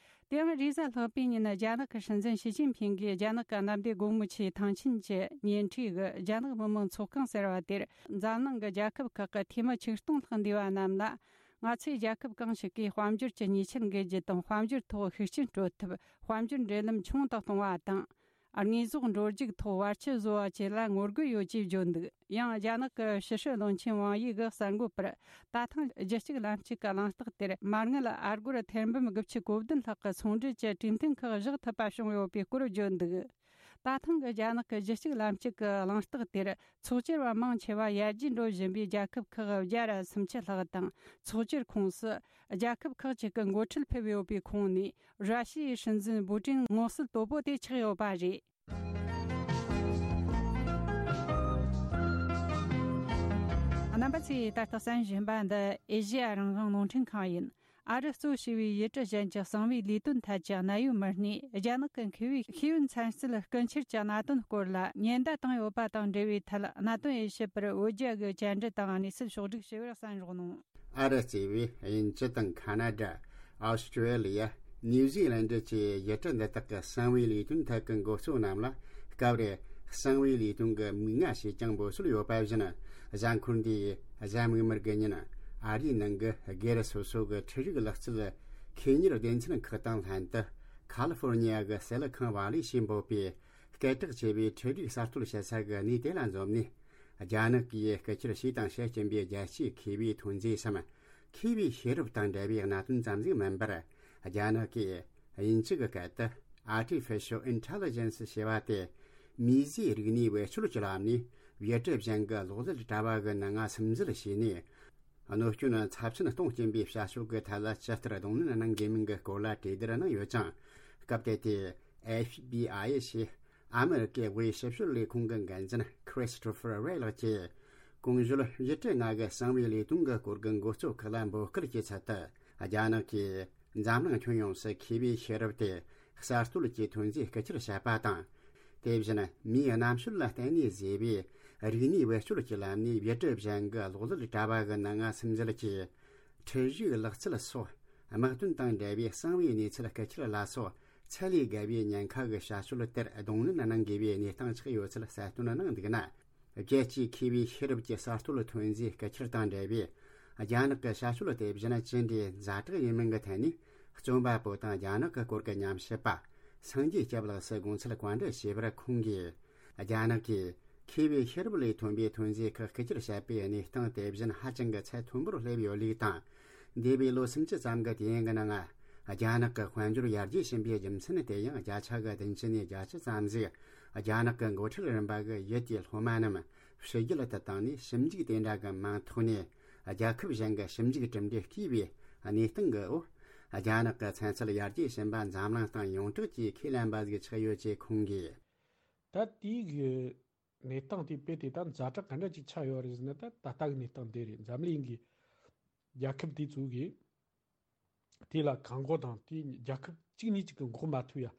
དེ་ཡང་རེས་གཟའ་ལྷག་པའི་ཉིན། རྒྱ་ནག་གི་སྲིད་འཛིན་ཞི་ཅིན་ཕིན་གྱིས་རྒྱ་ནག་གི་གནམ་བདེ་སྒོ་མོ་ཆེའི་ཐང་ཆེན་གྱི་ཉེ་འཁྲིས་ཀྱི་རྒྱ་ནག་མི་དམངས་ཚོགས་ཁང་ཟེར་བ་དེར། འཛམ་གླིང་གི་རྒྱལ་ཁབ་ཁག་གི་འཐུས་མི་ཆིག་སྟོང་ལྷག་འདུས་པ་རྣམས་ལ། ང་ཚོས་རྒྱལ་ཁབ་གང་ཞིག་གིས་དཔལ་འབྱོར་གྱི་ཉེས་ཆད་འགེལ་རྒྱུ་དང་། དཔལ་འབྱོར་ཐོག་ཤུགས་རྐྱེན་སྤྲོད་ཐབས། དཔལ་འབྱོར་འབྲེལ་ལམ་ཆུང་དུ་གཏོང་བ་དང་། དངོས་ཟོག་འགྲོ་རྒྱུག་ཐོག་བར་ཆད་བཟོ་བ་བཅས་ལ་ངོ་རྒོལ་ཡོད་ཅེས་བརྗོད་འདུག་ཡང་རྒྱ་ནག་གི་ཕྱི་སྲིད་བློན་ཆེན་ཝང་དབྱི་གིས་གསར་འགོད་པར། ད་ཐེངས་རྒྱུད་གཅིག་ལམ་གཅིག་གི་གླེང་སྟེགས་དེར། མ་དངུལ་ཨ་སྒོར་ཐེར་འབུམ་དགུ་བཅུ་གོ་བདུན་ལྷག་གི་ཚོང་འབྲེལ་གྱི་གྲོས་མཐུན་ཁག་བཞག་ཐུབ་པ་བྱུང་ཡོད་པའི་སྐོར་བརྗོད་འདུག་ད་ཐེངས་ཀྱི་རྒྱ་ནག་གི་རྒྱུད་གཅིག་ལམ་གཅིག་གི་གླེང་སྟེགས་དེར། ཚོགས་བཅར་བ་མང་ཆེ་བ་ཡར་རྒྱས་འགྲོ་བཞིན་པའི་རྒྱལ་ཁབ་ཁག་བརྒྱ་ར་སུམ་ཅུ་ལྷག་དང་། ཚོགས་བཅར་ཁོངས་སུ་རྒྱལ་ཁབ་ཁག་ཅིག་གི་འགོ་ཁྲིད་ཕེབས་ཡོད་པའི་ཁོངས་ནས། ར་ཤི་ཡའི་སྲིད་འཛིན་པུ་ཏིན་མངོན་གསལ་དོད་པོ་དེ་ཆགས་ཡོད་པ་རེད། རྣམ་པ་ཚོས་ད་ལྟ་གསན་བཞིན་པ་འདི་ཨེ་ཤེ་ཡ་རང་དབང་རླུང་འཕྲིན་ཁང་ཡིན། ཨ་རི་གཙོ་བྱས་པའི་ཡུལ་གྲུ་གཞན་གྱི་གསང་བའི་ལས་དོན་ཐད་ཀྱི་གནད་ཡོད་མི་སྣས། རྒྱ་ནག་གི་མཁས་པའི་ཤེས་ཡོན་ཚན་རྩལ་རྐུ་འཁྱེར་གྱི་གནད་དོན་སྐོར་ལ་ཉེན་བརྡ་བཏང་ཡོད་པ་དང་འབྲེལ་བའི་ཐད། གནད་དོན་དབྱེ་ཞིབ་པར་བོད་རྒྱ་གི་བཅར་འདྲི་དང་གནས་ཚུལ་ཕྱོགས་བསྒྲིགས་ཞུ་བར་གསན་རོགས་གནང་། ཨ་རི་གཙོས་པའི་དབྱིན་ཇི་དང་ཁ་ན་ཌ། ཨོ་སི་ཀྲེ་ལི་ཡ། ནིའུ་ཟི་ལན་ཌི་བཅས་ཡུལ་གྲུ་འདི་དག་གི་གསང་བའི་ལས་དོན་ཐད་ཀྱི་འགོ་གཙོ་རྣམས་ལ། སྐབས་རེ་གསང་བའི་ལས་དོན་གྱི་མིག་སྔ་ཞེས་ཀྱང་འབོད་སྲོལ་ཡོད་པ་བཞིན། གཟའ་འཁོར་འདིའི་གཟའ་མིག་དམར་གྱི་ཉིན། ཨ་རིའི་ནང་གི་སྒེར་སོ་སོ་གི་འཕྲུལ་རིག་ལག་རྩལ་མཁས་གཉེར་སྡེ་ཚན་ཁག་དང་ལྷན་དུ། ཁ་ལི་ཧྥོར་ནི་ཡ་གི་སེ་ལི་ཁོན་ཝ་ལི་ཞེས་འབོད་པའི་སྐད་གྲགས་ཆེ་བའི་འཕྲུལ་རིག་གསར་གཏོད་བྱེད་ས་གི་གནས་དེ་ལ་འཛོམས་ནས། རྒྱ་ནག་གིས་སྐུ་ཕྱིར་ཞུས་དང་བཤད་ཀྱིན་པའི་རྒྱལ་སྤྱིའི་ཁེ་བའི་ཐོན་རྫས་སམ། ཁེ་བའི་ཤེས་རབ་དང་འབྲེལ་བའི་གནད་དོན་ཙམ་ཞིག་མིན་པར། རྒྱ་ནག་གིས་དབྱིན་ཇི་གི་སྐད་དུ་Artificial Intelligence ཞེས་པ་སྟེ། མིས་བཟོས་རིག་གནས་བེད་སྤྱོད་ཀྱི་ལམ་ནས་བེད་སྤྱོད་གཞན་གྱི་གློག་ཀླད་དྲ་བ་གི་ནང་ང་སིམ་འཛུལ་བྱས་ནས། གནོད་སྐྱོན་ཚབས་ཆེན་གཏོང་སྐྱེན་པའི་བྱ་སྤྱོད་ཀྱི་ཐད་ལ་ཇི་ལྟར་གདོང་ལེན་གནང་དགོས་མིན་གྱི་སྐོར་ལ་གྲོས་བསྡུར་གནང་ཡོད་ཅིང་། སྐབས་དེ་དུས་F B I ཞེས་ཨ་མི་རི་ཀའི་དབུས་ཞིབ་དཔྱོད་ལས་ཁུངས་ཀྱི་འགན་འཛིན་Christopher Wray ལགས་ཀྱིས། གོང་ཞུས་བཞི་ཁྲི་ལྔ་གི་གསང་བའི་ལས་དོན་གྱི་སྐོར་གྱི་འགོ་གཙོ་ཁག་ལ་འབོད་སྐུལ་གྱི་ཚུལ་དུ། རྒྱ་ནག་གིས་འཛམ་གླིང་ཁྱོན་ཡོངས་སུ་ཁེ་བའི་ཤེས་རབ་དེ་གསར་གཏོད་ཀྱི་ཐོན་རྫས་སྐུ་ཕྱིར་བྱས་པ་དང་། དེ་བཞིན་མིའི་རྣམ་དཔྱོད་ལ་བརྟེན་ནས་བཟོས་པའི་རིག་གནས་བེད་སྤྱོད་ཀྱི་ལམ་ནས་བེད་སྤྱོད་གཞན་གྱི་གློག་ཀླད་དྲ་བ་གི་ནང་ང་སིམ་འཛུལ་གྱིས། འཁྲུལ་གཞིའི་ལག་རྩལ་སོགས་དམག་དོན་དང་འབྲེལ་བའི་གསང་བའི་གནས་ཚུལ་སྐུ་ཁྱེར་ལ་སོགས་ཚད་ལས་བརྒལ་བའི་ཉེན་ཁ་གི་བྱ་སྤྱོད་དེར་གདོང་ལེན་གནང་དགོས་པའི་གནས་སྟངས་ཆགས་ཡོད་ཚུལ་གསལ་སྟོན་གནང་འདུག་ན། རྒྱལ་སྤྱིའི་ཁེ་བའི་ཤེས་རབ་ཀྱི་གསར་གཏོད་ཐོན་རྫས་སྐུ་ཁྱེར་དང་འབྲེལ་བའི་རྒྱ་ནག་གི་བྱ་སྤྱོད་དེ་བཞིན་ཅི་འདྲའི་ཛ་དྲག་ཡིན་མིན་གྱི་ཐད་ནས། རྩོམ་པ་པོ་དང་རྒྱ་ནག་གི་སྐོར་གྱི་ཉམས་ཞིབ་པ་སངས་རྒྱས་སྐྱབས་ལགས་སུ་དགོངས་ཚུལ་བཀའ་འདྲི་ཞུས་པར། ཁོང་གིས། རྒྱ་ནག་གིས་ཁེ་བའི་ཤེས་རབ་ལས་ཐོན་པའི་ཐོན་རྫས་ཁག་སྐུ་ཁྱེར་བྱས་པའི་གནས་སྟངས་དེ་བཞིན་ཧ་ཅང་གི་ཚད་མཐོན་པོར་སླེབས་ཡོད་ལུགས་དང་། འདས་པའི་ལོ་སུམ་ཅུ་ཙམ་གྱི་དུས་ཡུན་གྱི་ནང་། རྒྱ་ནག་གི་དཔལ་འབྱོར་ཡར་རྒྱས་ཕྱིན་པའི་རྒྱུ་མཚན་དེ་ཡང་བརྒྱ་ཆ་གི་བདུན་ཅུ་ནས་བརྒྱད་ཅུ་ཙམ་ཞིག་རྒྱ་ནག་གི་འགོ་ཁྲིད་རིམ་པ་གི་ཡུལ་དེའི་སློབ་མ་རྣམས་ཕྱི་རྒྱལ་དུ་བཏང་ནས་ཞིབ་འཇུག་དེ་འདྲ་གི་མིང་ཐོག་ནས་རྒྱལ་ཁབ་གཞན་གྱི་ཞིབ་འཇུག་གྲུབ་འབྲས་བརྐུས་པའི་གནས་སྟངས་ཀྱི་འོག་རྒྱ་ནག་གི་ཚན་རྩལ་ཡར་རྒྱས་ཕྱིན་པ་འཛམ་གླིང་སྟེང་ཡོངས་གྲགས་ཀྱིས་ཁས་ལེན་པ་ཞིག་ཆགས་ཡོད་ཅེས་ཁོང་གིས། ད་དེའི་གནས་སྟངས་དེ་དཔེ་དེ་ད་ཛ་དྲག་ག་འདྲ་ཅིག་ཆགས་ཡོད་རེད་ཟེར་ན། ད་ད་ལྟ་གི་གནས་སྟངས་དེ་རེད། འཛམ་གླིང་གི་རྒྱལ་ཁབ་དེ་ཚོ་གིས་དེ་ལ་བཀག་འགོག་དང་། དེ་རྒྱལ་ཁབ་གཅིག་ནས་གཅིག་གི་འགོག་མ་ཐུབ་ཡ།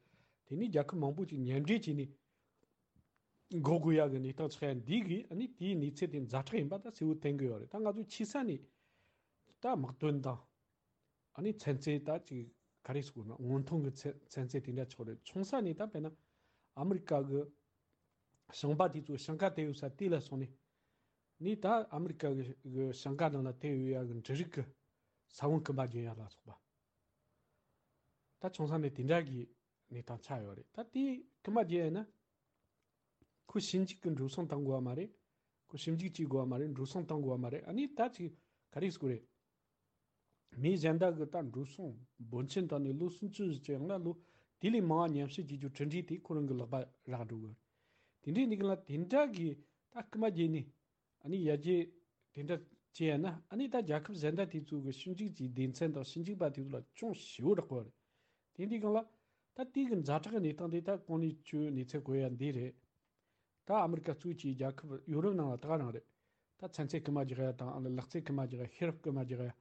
དེ་ནས་རྒྱལ་ཁབ་མང་པོ་ཅིག་མཉམ་འབྲེལ་བྱས་ནས་འགོག་དགོས་ཡ་གི་གནས་སྟངས་ཆགས་ཡ་འདི་གིས། ཨ་ནི་དེའི་གནས་ཚད་དེ་ཛ་དྲག་ཡིན་པ་ད་གསལ་བོ་བསྟན་གི་ཡོད་རེད། ད་ང་ཚོ་ཆེ་ས་ནས་ད་དམག་དོན་དང་། ཨ་ནི་ཚན་རྩལ་ད་ཅིག་ག་རེ་ཟེར་དགོས་ན། སྔོན་ཐོན་གྱི་ཚན་ཚན་རྩལ་དེ་འདྲ་ཆགས་རེད། ཆུང་ས་ནས་ད་དཔེར་ན་ཨ་མི་རི་ཀ་གི་ཞིང་པ་དེ་ཚོ་ཞིང་ཁ་དེད་ཡོད་ས་དེ་ལ་སོང་ནས། ནས་ད་ཨ་མི་རི་ཀ་གི་གི་ཞིང་ཁ་ནང་ལ་དེད་ཡོད་ཡ་གི་འབྲུ་རིགས་ཀྱི་ས་བོན་རྐུ་མ་རྒྱག་ཡ་ལ་སོགས་པ། ད་ཆུང་ས་ནས་དེ་འདྲ་གི་གནས་སྟངས་ཆགས་ཡོད་རེད། ད་དེ་རྐུ་མ་རྒྱག་ཡ་ན། ཁོ་ཞིབ་འཇུག་གི་འགྲོ་སོང་བཏང་དགོས་པ་མ་རེད། ཁོ་ཞིབ་འཇུག་བྱེད་དགོས་པ་མ་རེད། འགྲོ་སོང་བཏང་དགོས་པ་མ་རེད། ཨ་ནི་ད་ཅིག་ག་རེ་ཟེར་དགོས་རེད། མི་གཞན་དག་གི་ད་འགྲོ་སོང་འབོར་ཆེན་བཏང་ནས་ལོ་སུམ་ཅུ་ཙམ་ཡང་ན་ལོ་དེ་ལས་མང་བ་ཉམས་ཞིབ་བྱེད་རྒྱུ་གྲུབ་འབྲས་དེ་ཁོ་རང་གི་ལག་པ་རག་འགྲོ་གི་རེད། དེ་འདྲའི་འདི་ག་ལ་དེ་འདྲ་གི་ད་རྐུ་མ་བརྒྱབ་ནས། ཨ་ནི་ཡར་རྒྱས་དེ་འདྲ་བྱས་ཡ་ན། ཨ་ནི་ད་རྒྱལ་ཁབ་གཞན་དག་དེ་ཚོ་གི་ཞིབ་འཇུག་གི་སྡེ་ཚན་དང་ཞིབ་འཇུག་པ་དེ་ཚོ་ལ་ཅུང་ཞེ་པོ་རག་གི་རེད། དེ་འདི་ག་ལ་ད་དེ་གི་ཛ་དྲག་གི་གནས་སྟངས་དེ་ད་གོང་ནས་ཁྱོད་གནས་ཚུལ་གོ་ཡ་འདི་རེད། ད་ཨ་མི་རི་ཀ་གཙོས་ཀྱི་རྒྱལ་ཁབ་ཡོ་རོབ་ནང་ལ་ད་ག་རང་རེད། ད་ཚན་རྩལ་རྐུ་མ་རྒྱག་ཡ་དང་། ཨ་ནི་ལག་རྩལ་རྐུ་མ་རྒྱག་ཡ། ཤེས་རབ་རྐུ་མ་རྒྱག་ཡ།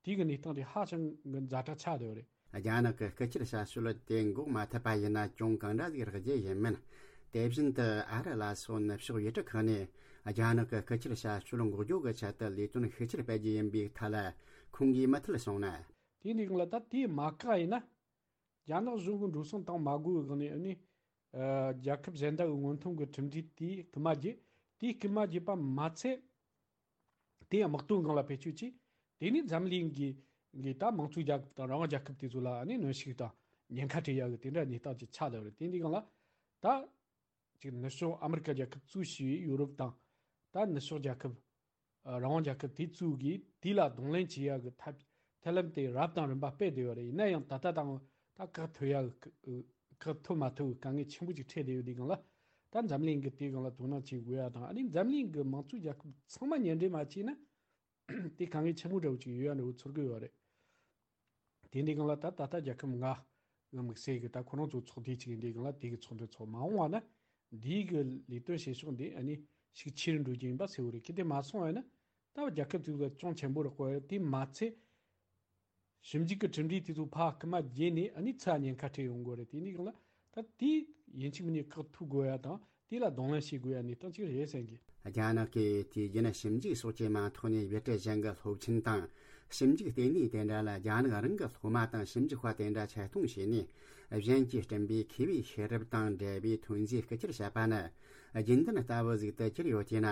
དེ་གི་གནས་སྟངས་དེ་ཧ་ཅང་གི་ཛ་དྲག་ཆགས་བསྡད་ཡོད་རེད། རྒྱ་ནག་གི་སྐུ་ཁྱེར་བྱ་སྤྱོད་དེ་འགོག་མ་ཐུབ་པ་ཡིན་ན་གྱོང་གང་འདྲ་ཞིག་རག་རྒྱུ་ཡིན་མིན། དེ་བཞིན་དུ་ཨ་རི་ལ་སོགས་ནུབ་ཕྱོགས་ཡུལ་གྲུ་ཁག་ནས་རྒྱ་ནག་གི་སྐུ་ཁྱེར་བྱ་སྤྱོད་འགོག་རྒྱུ་གི་ཆེད་དུ་ལས་དོན་ཤུགས་ཆེར་སྤེལ་རྒྱུ་ཡིན་པའི་ཐད་ལ་ཁོང་གིས་མུ་མཐུད་གསུངས་ན། དེ་འདི་གང་ལ་ད་དེ་མ་བཀག་ཡིན་ན། རྒྱ་ནག་གཞུང་གི་འགྲོ་སོང་བཏང་མ་དགོས་པའི་སྒང་ནས། ཨ་ནི་ཨ་རྒྱལ་ཁབ་གཞན་དག་གི་སྔོན་ཐོན་གྱི་གྲུབ་འབྲས་དེ་རྐུ་མ་བརྒྱབ། དེ་རྐུ་མ་བརྒྱབ་པ་མ་ཚད། དེ་ཡང་དམག་དོན་སྒང་ལ་བེད་སྤྱོད་བྱས། དེ་ནས་འཛམ་གླིང་གི་གི་ད་དམངས་གཙོའི་རྒྱལ་ཁབ་དང་རང་དབང་རྒྱལ་ཁབ་དེ་ཚོ་ལ་ཨ་ནི་གནོན་ཤུགས་དང་ཉེན་ཁ་སྤྲད་ཡག་གི་དེ་འདྲ་གནས་སྟངས་ཅིག་ཆགས་བསྡད་པ་རེད། དེ་འདི་སྒང་ལ་ད་ཅིག་ནུབ་ཕྱོགས་ཨ་མི་རི་ཀ་རྒྱལ་ཁབ་གཙོས་བྱས་པའི་ཡོ་རོབ་དང་། ད་ནུབ་ཕྱོགས་རྒྱལ་ཁབ། ཨ་རང་དབང་རྒྱལ་ཁབ་དེ་ཚོ་གིས་དེ་ལ་གདོང་ལེན་བྱེད་ཡག་གི་ཐབས་ཐབས་ལམ་དེ་རབ་དང་རིམ་པ་སྤེལ་བསྡད་ཡོད་རེད། ཡིན་ན་ཡང་ད་ལྟ་དང་ད་བཀག་ཐུབ་ཡག་གི་བཀག་ཐུབ་མ་ཐུབ་ཀྱི་དཀའ་ངལ་ཆེན་པོ་ཅིག་འཕྲད་བསྡད་ཡོད། དེ་སྒང་ལ་ད་འཛམ་གླིང་གིས་དེ་སྒང་ལ་དོ་སྣང་བྱེད་དགོས་ཡ་དང་། ཨ་ནི་འཛམ་གླིང་གི་དམངས་གཙོའི་རྒྱལ་ཁབ་ཚང་མ་མཉམ་འབྲེལ་མ་བྱས་ན། དེ་དཀའ་ངལ་ཆེན་པོ་འདྲ་བོ་ཅིག་ཡོད་ཡ་འདྲ་བོ་ཚོར་གི་ཡོད་རེད། དེ་འདི་སྒང་ལ་ད་ད་ལྟ་རྒྱལ་ཁབ་ལྔ་གི་དམིགས་བསལ་གྱི་ད་ཁོ་རང་ཚོ་ཚོགས་སྡེ་ཅིག་ཡིན། དེ་སྒང་ལ་དེ་གི་ཚོགས་འདུ་ཚོགས་མ་འོངས་པ་ན་འདིའི་གི་ལས་དོན་བྱེད་ཕྱོགས་འདི་ཨ་ནི་ཤུགས་ཆེ་རུ་འགྲོ་རྒྱུ་ཡིན་པ་གསལ་བོ་རེད། གལ་ཏེ་མ་སོང་བ་ཡིན་ན་ད་རྒྱལ་ཁབ་ཚོ་ལ་ཅུང་ཆེན་པོ་རག་གི་རེད། དེ་མ་ཚད་ཞིབ་འཇུག་གི་གྲུབ་འབྲས་དེ་ཚོ་ཕར་རྐུ་མ་བརྒྱབ་ནས་ཨ་ནི་ཚུར་ཉེན་ཁ་འཕྲད་ཡོང་གི་རེད། དེ་འདི་སྒང་ལ་ད་དེ་ཡིན་གཅིག་མིན་གཉིས་བཀག་ཐུབ་དགོས་ཡ་དང་། དེ་ལ་གདོང་ལེན་བྱེད་དགོས་ཡ་གནས་སྟངས་ཅིག་རེད་བསམ་གི། རྒྱ་ནག་གིས་དུས་རྒྱུན་ཞིབ་འཇུག་སོགས་ཀྱི་མིང་ཐོག་ནས་ཡུལ་གྲུ་གཞན་གྱི་སློབ་ཆེན་དང་ཞིབ་འཇུག་ལྟེ་གནས་དེ་འདྲ་ལ་རྒྱ་ནག་རང་གི་སློབ་མ་དང་ཞིབ་འཇུག་པ་དེ་འདྲ་ཆེད་གཏོང་བྱས་ནས། གཞན་གྱིས་བསྐྲུན་པའི་མཁས་པའི་ཤེས་རབ་དང་འབྲེལ་བའི་ཐོན་རྫས་རྐུ་ཁྱེར་བྱས་པ་ནི་རྒྱུན་ལྡན་ལྟ་བུ་ཞིག་ཏུ་གྱུར་ཡོད་དེས་ན།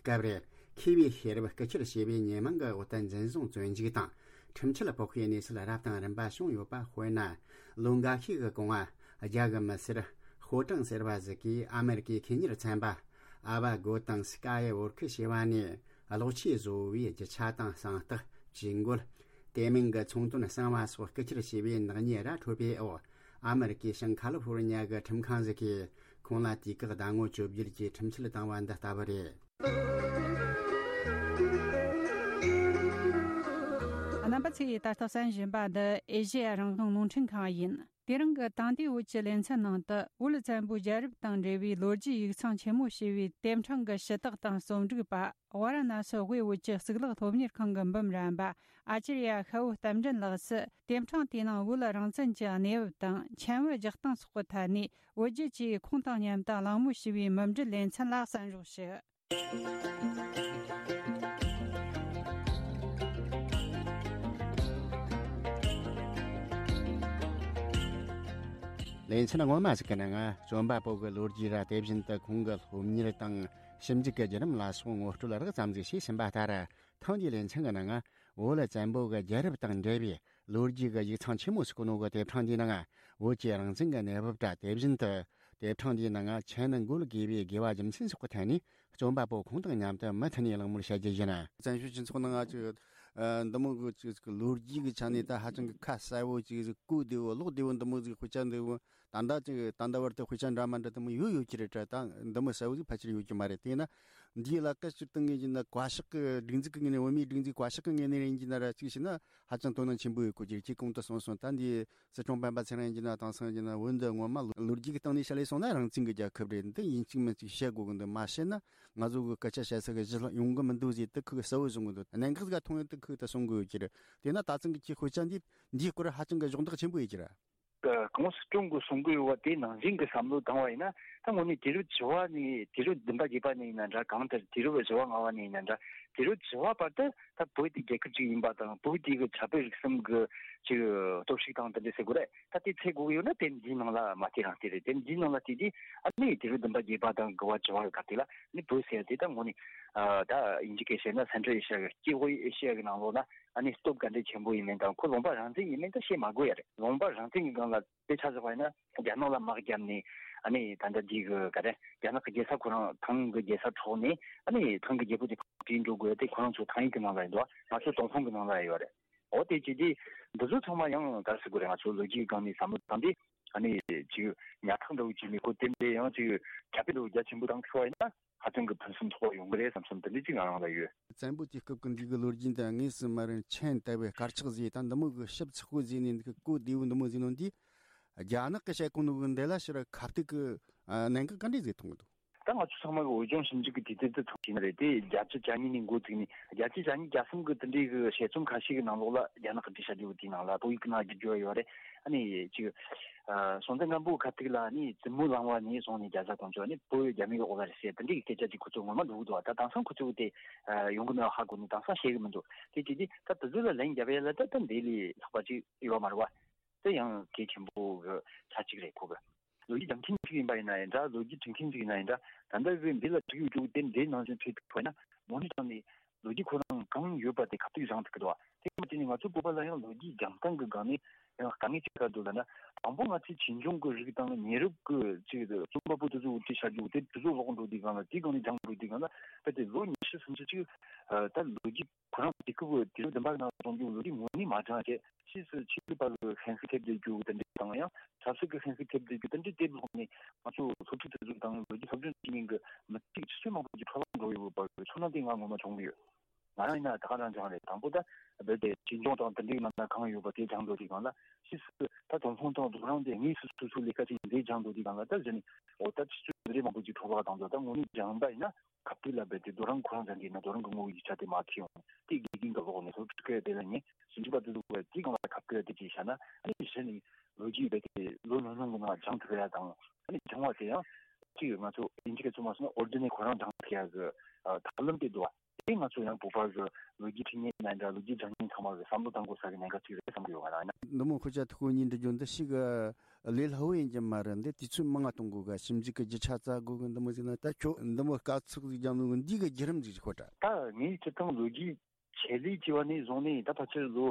སྐབས་རེ་མཁས་པའི་ཤེས་རབ་རྐུ་ཁྱེར་བྱས་པའི་ཉེས་མིང་གི་འོག་ཏུ་འཛིན་བཟུང་བཙོན་འཇུག་དང་ཁྲིམས་ཆད་ཕོག་པའི་གནས་ཚུལ་རབ་དང་རིམ་པ་བྱུང་ཡོད་པ། དཔེར་ན། ལོ་འགའ་ཤས་ཀྱི་གོང་ང་རྒྱ་གི་མི་སེར་ཧོ་ཀྲང་ཟེར་བ་ཞིག་གིས་ཨ་མེ་རི་ཀའི་ཁེ་གཉེར་ཚན་པ་ ཨ་བ་གོ་དང་སི་ཀ་ཡི་ཝོར་ཁི་ཞེས་པ་ནས་གློག་ཆས་བཟོ་བའི་རྒྱུ་ཆ་དང་གསང་རྟགས། ཇུས་འགོད། དེ་མིན་གྱི་ཚོང་དོན་གསང་བ་སོགས་སྐུལ་ཁྱེར་བྱས་པའི་ནག་ཉེས་ར་འཕྲོད་པའི་འོག་ཨ་མི་རི་ཀའི་ཤང་ཁ་ལི་ཧྥོ་རི་ཉ་གི་ཁྲིམས་ཁང་ཞིག་གིས་ཁོང་ལ་དུས་བཀག་ཟླ་ངོ་བཅོ་བརྒྱད་ཀྱི་ཁྲིམས་ཆད་བཏང་བ་འདི་ལྟ་བུ་རེད། རྣམ་པ་ཚོས་ད་ལྟ་གསན་བཞིན་པ་འདི་ཨེ་ཤེ་ཡ་རང་དབང་རླུང་འཕྲིན་ཁང་ཡིན། དེ་རིང་གི་དེང་དུས་བོད་ཀྱི་ལེ་ཚན་ནང་དུ་བོད་བཙན་པོའི་རྒྱལ་རབས་དང་འབྲེལ་བའི་ལོ་རྒྱུས་ཡིག་ཚང་ཆེན་མོ་ཞེས་པའི་དེབ་ཕྲེང་གི་ཞུ་དག་དང་རྩོམ་སྒྲིག་པ། ཝཱ་ར་ཎ་སི་དབུས་བོད་ཀྱི་གཙུག་ལག་སློབ་གཉེར་ཁང་གི་འབུམ་རམས་པ་ཨ་ཅར་ཡ་ཤ་བོ་རྟ་མགྲིན་ལགས་སུ། དེབ་ཕྲེང་དེའི་ནང་བོད་རང་བཙན་གྱི་གནས་བབ་དང་ཆེན་བོད་རྒྱག་སྟངས་སོགས་ཀྱི་ཐད་ནས་བོད་བརྒྱུད་ཀྱིས་ཁུངས་དང་ཉམས་དང་གླེང་མོལ་ཞུས་པའི་མུ་འབྲེལ་ལེ་ཚན་ལ་གསན་རོགས་ཞུ། ལེ་ཚན་སྔོན་མ་ཞིག་གི་ནང་རྩོམ་པ་པོ་གི་ལོ་རྒྱུས་ར། དེ་བཞིན་དུ་ཁོང་གི་སློབ་གཉེར་དང་ཞིབ་འཇུག་གི་བརྒྱུད་རིམ་ལ་སོགས་ངོ་སྤྲོད་རགས་ཙམ་ཞིག་བྱས་ཟིན་པ་ལྟར། ཐེངས་འདིའི་ལེ་ཚན་གྱི་ནང་བོད་བཙན་པོ་གི་རྒྱལ་རབས་དང་འབྲེལ་བའི་ལོ་རྒྱུས་ཀྱི་ཡིག་ཚང་ཆེན་མོ་ཞིག་གི་ནང་གི་དེབ་ཕྲེང་འདིའི་ནང་བོད་ཀྱི་རང་བཙན་གྱི་གནས་བབ་དང་། དེ་བཞིན་དུ་དེབ་ཕྲེང་འདིའི་ནང་ཆེན་འགོད་དགོས་པའི་དགོས་པ་རྒྱུ་མཚན་སོགས་ཀྱི་ཐད་ནས་རྩོམ་པ་པོ་ཁོང་དང་མཉམ་དུ་མུ་མཐུད་ནས་གླེང་མོལ་བྱ་རྒྱུ་ཡིན། བཙན་བྱོལ་སྤྱི་ཚོགས་ནང་ང་ཅིག་འདི་མོ་གི་ཅིག་ལོ་རྒྱུས་ཀྱི་ཆ་ནས་ད་ཧ་ཅང་གི་ཁ་གསལ་བོ་ཅིག་གོ་བདེ་བོ་ཀློག་བདེ་བོ་འདི་མོ་ཟིག་དཔེ་ཆ་འདི་བོ་ད་ལྟ་ཅིག་ད་ལྟ་བར་དུ་དཔེ་ཆ་འདྲ་མ་འདྲ་འདི་མོ་ཡོད་ཡོད་ཀྱི་རེད་དྲ། ད་འདི་མོ་གསལ་བོ་ཟིག་ཕལ་ཆེར་ཡོད་ཀྱི་མ་རེད། དེས་ན་འདིའི་ལ་ཀ་ཕྱིར་བཏང་ངེས་ཀྱི་ན་བཀའ་ཤག་གི་སྒྲིག་འཛུགས་ཀྱི་ངོས་ནས། བོད་མིའི་སྒྲིག་འཛུགས་བཀའ་ཤག་གི་ངོས་ནས་ཡིན་གྱི་ན་ར་ཅིག་བྱས་ན་ཧ་ཅང་དོ་སྣང་ཆེན་པོ་ཡོད་དགོས་ཀྱི་རེད། ཁྱེད་གོང་དུ་གསུངས་སོང་། ད་འདི་སྲིད་སྐྱོང་སྤེན་པ་ཚེ་རིང་ཡིན་གྱི་ན་དེང་སང་ཡིན་གྱི་ན་བོད་འདི་ངོ་མ་ལོ་ལོ་རྒྱུས་ཀྱི་སྟེང་ནས་བཤད་ལས་སོང་ན་རང་བཙན་གྱི་རྒྱལ་ཁབ་རེད། འདི་ཡིན་གཅིག་མིན་གཅིག་བཤད་དགོས་ཀྱི་འདུག་མ་བཤད་ན་ང་ཚོ་གི་སྐད་ཆ་བཤད་ས་གི་གཞི་ལ་ཡོང་གི་མི་འདུག་ཟེར་དེ་ཁོས་གསལ་བོ་བཟུང་གི་འདུག་གནད་འགག་ཟིག་མཐོང་ཡོད་དེ་ཁོས་ད་གསུང་གི་ཡོད་ཀྱི་རེད། དེས་ན་ད་ཐེངས་ཀྱི་ཁྱེད་དཔེ་ཆ་འདི་འདིའི་སྐོར་ཧ་ཅང་གི་གཞོགས་འདེགས་ཆེན་པོ་ཡོད་ཀྱི་རེད། གོང་སྲིད་སྐྱོང་གི་གསུང་གི་ཡོད་པ་དེ་ནང་བཞིན་གྱི་བསམ་བློ་བཏང་བ་ཡིན་ན། ད་དངོས་གནས་དུས་རབས་བཅུ་པ་ནས་དུས་རབས་བདུན་པ་བརྒྱད་པ་ནས་ཡིན་ན་འདྲ། གང་ལྟར་དུས་རབས་བཞི་པ་ལྔ་པ་ནས་ཡིན་ན་འདྲ། དུས་རབས་བཅུ་པ་བར་དུ་ད་བོད་དེ་རྒྱལ་ཁབ་ཅིག་ཡིན་པ་དང་། བོད་དེ་གི་ཆབ་སྲིད་རིག་གསུམ་གི་ཅིག་སྟོབས་ཤུགས་དང་དེ་འདྲ་ཟེར་དགོས་རེད། ད་དེ་འཚོལ་དགོས་ཀྱི་ཡོད་ན་དེབ་འདིའི་ནང་ལ་མ་བལྟས་རང་བལྟས་རེད། དེབ་འདིའི་ནང་ལ་བལྟས་དུས་ཨ་ནི་དུས་རབས་བདུན་པ་བརྒྱད་པ་དང་དགུ་པ་བཅུ་པ་གི་སྐབས་དེ་ལ་ནི་བོད་ཟེར་ཡ་དེ་ད་དངོས་གནས་ད་དབྱིན་ཇི་སྐད་བཤད་ན་Central Asia གི། སྐྱེ་བོ་ཨེ་ཤི་ཡ་གི་ནང་ལོགས་ན་ཨ་ནི་སྟོབས་ག་འདྲས་ཆེན་པོ་ཡིན་མིན་དང་། ཁོ་ལུང་པ་རང་བཙན་ཡིན་མིན་ད་བཤད་མ་དགོས་ཡ་རེད། ལུང་པ་རང་བཙན་གྱི་སྒང་ལ་དཔེ་ཆ་བཞག་པ་ཡིན་ན། རྒྱ་ནག་ལ་དམག་བརྒྱབ་ནས་ཨ་ནི་ད་ལྟ་འདི་གི་ག་རེ། རྒྱ་ནག་གི་རྒྱལ་ས་ཁོ་རང་ཐང་གི་རྒྱལ་ས་འཕྲོག་ནས་ཨ་ནི་ཐང་གི་རྒྱལ་པོ་དེ་ཕར་བྲོས་འགྲོ་དགོས་ཡ་དེ་ཁོ་རང་ཚོ་ཐང་ཡིག་གི་ནང་ལ་ཡོད་འདུག་མ་ཚོ་ཏུན་ཧོང་གི་ནང་ལ་ཡོད་རེད། འོ་དེ་བྱས་དུས་འདི་ཚོ་ཚང་མ་ཡང་ག་རེ་ཟེར་དགོས་རེད། ང་ཚོ་ལོ་རྒྱུས་སྒང་ནས་བསམ་བློ་བཏང་དུས་ཨ་ནི་ཅིག་ཉག་ཕྲ་འདྲ་བོ་ཅིག་མེད། ཁོ་དེ་འདྲའི་ཡང་ཅིག་ཁྱབ་སྤེལ་འདྲ་བོ་རྒྱ་ཆེན་པོ་བཏང་ཐུབ་པ་ཡིན་ན། ཧ་ཅང་གི་ཕུན་སུམ་ཚོགས་པ་ཡོང་གི་རེད་བསམ་བསམ་དེ་འདྲ་ཅིག་ང་རང་ལ་ཡོད། བཙན་པོ་དུས་སྐབས་ཀྱི་འདི་གི་ལོ་རྒྱུས་འདི་དངོས་སུ་མ་རན་མཆན་བཏབ་པའི་དཀར་ཆག་བཟོས་དང་འདི་མོ་གི་ཞིབ་ཚགས་པོ་བཟོས་ནས། འདི་གི་གོ་བདེ་བོ་འདི་མོ་བཟོས་ནོ་འདི་རྒྱ་ནག་གི་བཤད་ཁོ་ནོ་གི་འདི་ལ་ཕྱིར་ཁ་གཏུག་གི་གནད་འགག་ག་འདྲས་བཟོས་མཐོང་གི་འདུག་ད་ང་ཚོ་ཚང་མ་གི་བོད་ལྗོངས་ཞིབ་འཇུག་གི་དུས་ཚོད་དེ་ཚང་ཞིག་ནི་རེད་དེ། བརྒྱད་ཅུ་གྱ་གཉིས་ནས་འགོ་བཙུགས་ནས་བརྒྱད་ཅུ་གྱ་གཉིས་གྱ་གསུམ་གི་དེ་འདྲའི་གི་དཔྱད་རྩོམ་ཁ་ཤས་ཀྱི་ནང་ལོགས་ལ་རྒྱ་ནག་གི་འགྲེལ་བཤད་བརྗོད་པ་དེའི་ནང་ལ་བོད་ཡིག་གི་ནང་བསྒྱུར་བརྗོད་ཡོད་རེད། ཨ་ནི་ཅིག་ཨ་སྲོང་བཙན་སྒམ་པོའི་ཁ་ཐུག་ལ་ནི་བཙུན་མོ་གླང་བ་ནས་བཟུང་ནས་རྒྱ་བཟའ་གོང་ཆོག་ནི་བོད་རྒྱ་མིའི་འོག་ལ་རེད་ཟེར་དེ་འདྲའི་སྐད་ཆ་ཅིག་ཁོ་ཚོ་ངོ་མ་འགྲོ་གི་འདུག་ད་དེང་སང་ཁོ་ཚོ་དེ་ཡོང་གི་མེད་པ་ཧ་གོ་ནས་དེང་སང་བཤད་གི་མི་འདུག་དེ་དེ་དེ་ད་དེ་ཚོ་ལ་ལན་རྒྱབ་ཡ་ལ་ད་ད་འདི་ལས་ལྷག་པ་ཅིག་ཡོད་མ་རེད་བ། དེ་ཡང་གལ་ཆེན་པོ་གི་ཆ་གཅིག་རེད། ཁོ་གི་ལོ་རྒྱུས་སྦྱང་མཁན་ཅིག་ཡིན་པ་ཡིན་ན་ཡང་འདྲ། ལོ་རྒྱུས་འབྲི་མཁན་ཅིག་ཡིན་ན་ཡང་འདྲ། ད་ལྟ་གི་འདི་ལ་འབྲི་ཡོད་རྒྱུ་དེ་འདྲའི་ནང་བཞིན་བྲིས་ཐུབ་པ་ཡིན་ན་དངོས་གནས་དྲང་ནས་ལོ་རྒྱུས་ཁོ་རང་གང་ཡོད་པ་དེ་ཁ་གཏུག་སྦྱང་ཐུབ་ཀྱི་འདུག་དེ་མ་བྱས་ནས་ང་ཚོ་བོད་པ་ལ་ཡང་ལོ་རྒྱུས་སྦྱང་སྟངས་ཀྱི་སྒང་ནས་ཡང་དཀའ་ངལ་ཅིག་ག་འདུག་ལབ་ན། དང་པོ་ང་ཚོའི་བྱིས་སྐྱོང་གི་རིགས་དང་ཉེ་རབས་ཀྱི་ཅིག་རྩོམ་པ་པོ་དེ་ཚོ་འུར་ཁྲིད་བྱ་རྒྱུ་དེ་དེ་ཚོ་ཀློག་འགྲོ་དུས་སྒང་ལ། དེའི་སྒང་ནས་སྦྱང་འགྲོ་དུས་སྒང་ལ་རྦད་དེ་ལོ་ཉི་ཤུ་སུམ་ཅུ་ཅིག་ད་ལོ་རྒྱུས་ཁོ་རང་དུས་སྐབས་དུས་རབས་བདུན་པ་ནང་སོང་རྒྱུ་ལོ་རྒྱུས་ངོ་ནས་མ་སྦྱངས་བྱས། ཕྱིས་སུ་ཆོས་ལུགས་པ་ལ་ཤན་ཤུགས་ཐེབས་བསྡད་རྒྱུ་དེ་འདྲ་དང་། ཡང་ཆབ་སྲིད་ཀྱི་ཤན་ཤུགས་ཐེབས་བསྡད་རྒྱུ་དེ་འདྲའི་དེབ་ཀློག་ནས་ང་ཚོ་སློབ་ཕྲུག་དེ་ཚོ་དང་ལོ་རྒྱུས་སློབ་སྦྱོང་བྱེད་མཁན་གྱི་མི་ཚེ་གི་ཆུ་ཚོད་མང་པོ་ཅིག་འཕྲོ་བརླག་འགྲོ་ཡོད་པ་གི་ཚོར་སྣང་དེ་ང་ངོ་མ་བྱུང་གི་ཡོད། ང་རང་ཡིན་ན་ད་ག་རང་སྦྱངས་རེད། དང་པོ་ད་རྦད་དེ་བྱིས་སྐྱོང་དང་དེ་འདྲའི་ནང་ན་གང་ཡོད་པ་དེ་སྦྱང་འགྲོ་དུས་སྒང་ལ། ཕྱིས་སུ་ད་ཏུན་ཧོང་དང་རྡོ་རིང་དེ་དངོས་སུ་སོ་སོའི་ལས་ཀ་བྱེད་མཁན་དེ་སྦྱང་འགྲོ་དུས་སྒང་ལ། ད་གཞི་ནས་འོ་ད་ཆུ་ཚོད་འདི་འདྲའི་མང་པོ་ཅིག་འཕྲོ་བརླག་བཏང་འདུག་ད་དངོས་གནས་སྦྱངས་པ་ཡིན་ན། ཁ་ཐུག་ལ་རྦད་དེ་རྡོ་རིང་ཁོ་རང་སྦྱང་གི་ཡིན་ན་རྡོ་རིང་གི་ངོ་བོ་ཡིག་ཆ་དེ་མར་འཁྱེར་ཡོང་། དེ་དགེ་རྒན་གྱི་འོག་ནས་སློབ་ཕྲུག་སྐད་དེ་ལ་ཉན། ཞིབ་འཇུག་པ་དེ་ཚོ་གིས་དེའི་སྒང་ལ་ཁ་ཐུག་དེ་ཅིག་བྱས་ན། ཨ་ནི་གཞི་ནས་ལོ་རྒྱུས་རྦད་དེ་ལོ་ཉུང་ཉུང་གི་ནང་སྦྱང་ཐུབ་ཡ་དང་། ཨ་ནི་སྦྱང་བ་དེ་ཡང་ཅིག་ང་ཚོ་དབྱིན་ཇི་སྐད་ཚོ་མ་སོང་ན་ཨོར་ཌི་ནེ་ཁོ་རང་སྦྱང་ཐུབ་ཡ་གི་ཨ་ཐབས་ལམ་དེ་འདུག་བ། དེ་ང་ཚོ་ཡང་བོད་པ་གི་ལོ་རྒྱུས་འབྲི་མཁན་ཡིན་ན་འདྲ། ལོ་རྒྱུས་སྦྱང་མཁན་ཚང་མ་གི་བསམ་བློ་གཏང་དགོས་ས་གི་གནད་འགག་ཅིག་རེད་བསམ་གི་ཡོད། ང་རང་ཡིན་ན། འདི་མོ་ཁོ་ཅག་ཐུགས་ཁུར་གཉིས་འདྲི་རྒྱུ་འདི་ཞིག་ལས་སླ་བོ་ཡིན་གྱི་མ་རེད། འདི་དུས་ཚོད་མང་ང་གཏོང་དགོས་ག་ཞིབ་འཇུག་གི་རྒྱུ་ཆ་བཙལ་དགོས་གི། འདི་མོ་ཟིག་ན་ད་ཁྱོད་འདི་མོ་དཀའ་ཚེགས་ཟིག་རྒྱབ་ནོ་འདི་གི་བརྒྱུད་རིམ་ཟིག་ཤོད་དྲ། ད་ངས་སྤྱིར་བཏང་ལོ་རྒྱུས་ཆེད་ལས་བྱས་པ་ནས་བཟུང་ནས་ད་ཕལ་ཆེར་ལོ་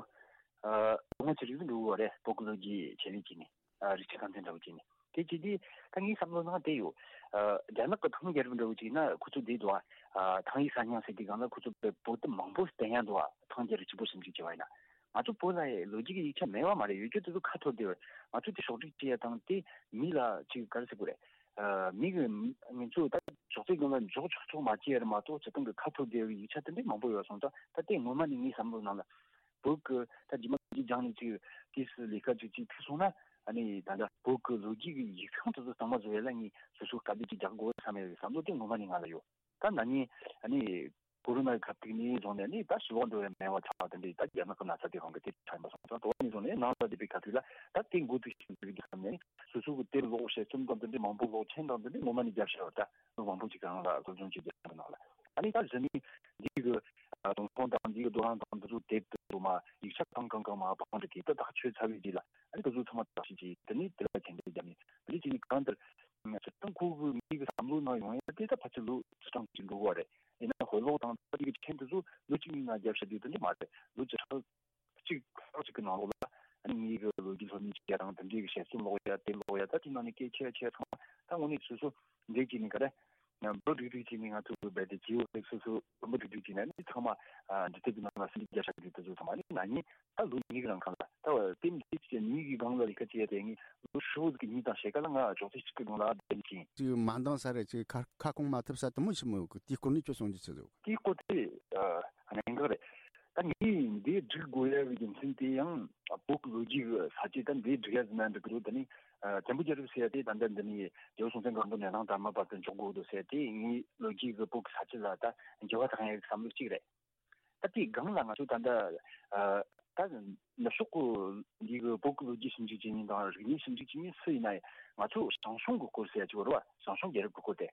ཨ་ལོ་ངོ་ཆེ་རིགས་འགྲོ་གི་རེད། བོད་ཀྱི་ལོ་རྒྱུས་ཆེད་ལས་བྱས་ནས། ཨ་རིག་ཆ་ཁང་ཚན་འདྲ་བོ་བྱས་ནས། དེ་བྱས་དུས་ད་ངའི་བསམ་བློ་ནང་དེ་ཡོད། ཨ་རྒྱ་ནག་གི་ཐང་རྒྱལ་རབས་འདྲ་བོ་ཅིག་ཡིན་ན་ཁོ་ཚོ་བསྡད་འདུག་ཨ། ཐང་ཡིག་གསར་རྙིང་ཟེར་དུས་སྒང་ལ་ཁོ་ཚོ་བོད་དེབ་མང་པོ་བསྟན་ཡ་འདུག་ཨ། ཐང་རྒྱལ་རབས་གཅིག་པོ་ཞིབ་འཇུག་བྱས་པ་ཡིན་ན། ང་ཚོ་བོད་ལ་ལོ་རྒྱུས་ཀྱི་ཡིག་ཆ་མེད་པ་མ་རེད། ཡོད་རྒྱུ་དེ་ཚོ་ཁ་འཐོར་བསྡད་པ་རེད། ང་ཚོ་དེ་ཕྱོགས་སྒྲིག་བྱེད་ཡ་དང་དེ་མི་ལ་ཅིག་ག་རེ་ཟེར་དགོས་རེད། ཨ་མི་གི་ང་ཚོ་ད་ཅོག་ཙེ་སྒང་ལ་འཇོག་ཆོག་ཆོག་མ་བྱས་ར་མ་གཏོགས་སྤྱིར་བཏང་གི་ཁ་འཐོར་བསྡད་པའི་ཡིག་ཆ་དེ་འདྲའི་མང་པོ་ཡོད་སོང་ཙང་། ད་དེ་སྔོན་མ་ནས་ངའི་བསམ་བློ་ནང་ལ་བོད་ཀྱི་ད་རྗེས་མ་རྗེས་སྦྱངས་ནས་ཅིག་དུས་སུ་ལས་ཀ་ཅིག་ཅིག་ཁུར་སོང་ན། ཨ་ནི་ད་ལྟ་བོད་ཀྱི་ལོ་རྒྱུས་ཀྱི་ཡིག་ཚང་དེ་ཚོ་གཙང་མ་བཟོ་ཡ་ལ་ངས་སོ་སོ་དཀའ་སྡུག་ཅིག་རྒྱག་དགོས་བསམ་ཡ་ཡོད་བསམ་བློ་དེ་སྔོན་མ་ནས་ང་ལ་ཡོད། ད་ན་ནིང་ཨ་ནི་ཀོ་རོ་ན་གི་ཁ་ཐུག་ནས་བཟུང་ནས་ནི་ད་ཞི་ལོག་འགྲོ་བའི་མེད་པ་ཆགས་པ་དེ་འདྲའི་ད་རྒྱ་ནག་གི་ན་ཚ་དེ་རང་གི་དེ་ཆགས་ཡིན་པ་སོང་ཙང་། དེ་ནས་བཟུང་ནས་ནང་ལ་བསྡད་པའི་ཁ་ཐུག་ལ་ད་དེ་འགོ་ཚུགས་ཤིང་འཛུགས་རྒྱུ་བསམ་ནས་སོ་སོ་གི་དེབ་ཀློག་དཔྱད་རྩོམ་དང་དེ་འདྲའི་མང་པོ་ཀློག་མཁན་དང་དེ་འདྲའི་ངོ་མ་ནས་རྒྱབ་ཤ་བ་ད་མི་མང་པོ་ཅིག་གི་རང་ལ་སློབ་སྦྱོང་བྱེད་རྒྱུ་གི་ནང་ལ། ཨ་ནི་ད་གཞི་ནས་འདི་གི་ཨ་དུང་ཕོང་དང་འདི་གི་རྡོ་རིང་དང་འདི་ཚོ་དེབ་དེ་ཚོ་མ་ཡིག་ཆ་གང་གང་གང་མ་བང་འདྲི་གི་ད་ཐག་ཆོད་ཚར་བའི་རྗེས་ལ། ཨ་ནི་དེ་ཚོ་ཚང་མ་བརྟག་ཞིབ་བྱས། དེ་ནས་དེ་ལ་ཁྱེད་འདྲ་རྒྱབ་ནས་འདི་བྱས་ནས་གང་ལྟར། སྤྱིར་བཏང་ཁོ་གི་མི་གི་བསམ་བློ་ནང་ཡོང་ཡ་དེ་ད་ཕལ་ཆེར་ལོ་བཅུ་གྲངས་ཅིག་འགྲོ་གི་རེད། ཡིན་ན་དཔེ་ཀློག་དང་ད་ཅིག་གི་ཆེན་དེ་ཚོ་ལོ་གཅིག་གཉིས་ནང་རྒྱབ་བཞག་རྒྱུ་དེ་འདྲ་མ་རེད། ལོ་བཅུ་ཕྲག་གཅིག་ཕྲག་གཅིག་གི་ནང་ལོགས་ལ་ཨ་ནི་ངེད་ཀྱི་ལོ་རྒྱུས་སློབ་གཉེར་བྱེད་ཡ་དང་དེ་འདྲའི་གི་དཔྱད་རྩོམ་ཀློག་ཡ་དེབ་ཀློག་ཡ་ད་དེ་ནང་ནས་སྐད་ཆ་ཆ་ཚང་མ་ད་དངོས་གནས་སོ་སོ་འདྲེས་བྱས་ནས་ག་རེ་འབུ་སྒྲིག་སྒྲིག་བྱས་ནས་ང་ཚོ་རྦད་དེ་ཇི་ཡོ་ལེགས་སོ་སོ་འབུ་སྒྲིག་སྒྲིག་བྱས་ནས་ཨ་ནི་ཚང་མ་ཨ་འབྲི་དེབ་ཀྱི་ནང་ལ་ཟིན་བྲིས་རྒྱབ་བཞག་རྒྱུ་དེ་ཚོ་ཚང་མ་ཨ་ནི་ན་ནིང་ད་ལོ་གཉིས་ཀྱི་རིང་གང་ལ་ད་བ་དེ་མི་ཚེ་གཅིག་གཉིས་ཀྱི་སྒང་ལ་ལས་ཀ་བྱས་ཏེ་ངས་ལོ་ཧྲིལ་བོ་ཟིག་གི་གཉིས་དང་ཕྱེད་ཀ་ལ་ང་ཅོག་ཙེ་གཅིག་གི་སྒང་ལ་བསྡད་ཀྱིན། ཅིག་མ་འདང་ས་རེད། ཅིག་ཁ་ཁ་སྐོང་མ་ཐུབ་ས་དུ་མོ་ཆི་མོ་ཡོད་གི། དེའི་སྐོར་ནས་ཁྱོད་གསུང་རྒྱུ་ཆི་ཟིག་ཡོད་གི། དེའི་སྐོར་དེ་ཨ་གནད་འགག་རེད། ད་ངས་འདི་སྒྲིག་དགོས་ཡ་གི་རྒྱུ་མཚན་དེ་ཡང་བོད་ཀྱི་ལོ་རྒྱུས་ཀྱི་ས་བཅད་ད་འདི་སྒྲིག་ཡ་ཟིན་ན་འགྲིག་གི་འདུག་དེ་ནི་ཨ་བཙན་པོ་རྒྱལ་རབས་ཟེར་ཡ་དེ་ད་ལྟ་འདི་ནི་རྒྱལ་པོ་སྲོང་བཙན་སྒམ་པོ་ནས་གླང་དར་མ་བར་དུ་འཇོག་དགོས་འདུག་ཟེར་ཡ་དེ་ངའི་ལོ་རྒྱུས་ཀྱི་བོད་ཀྱི་ས་བཅད་ལ་ད་འགྱུར་བ་བཏང་ཡ་གི་བསམ་བློ་གཅིག་རེད། ད་དེའི་སྒང་ལ་ང་ཚོ་ད་ལྟ་ཨ་ད་ནུབ་ཕྱོགས་ཀྱི་འདི་གི་བོད་ཀྱི་ལོ་རྒྱུས་ཞིབ་འཇུག་བྱེད་མཁན་དང་རིག་གནས་ཞིབ་འཇུག་བྱེད་མཁན་སུ་ཡིན་ན་ཡང་ང་ཚོ་ཞང་ཞུང་གི་སྐོར་ཟེར་ཡ་ཅིག་ཡོད་རེད་བ། ཞང་ཞུང་རྒྱལ་རབས་ཀྱི་སྐོར་དེ།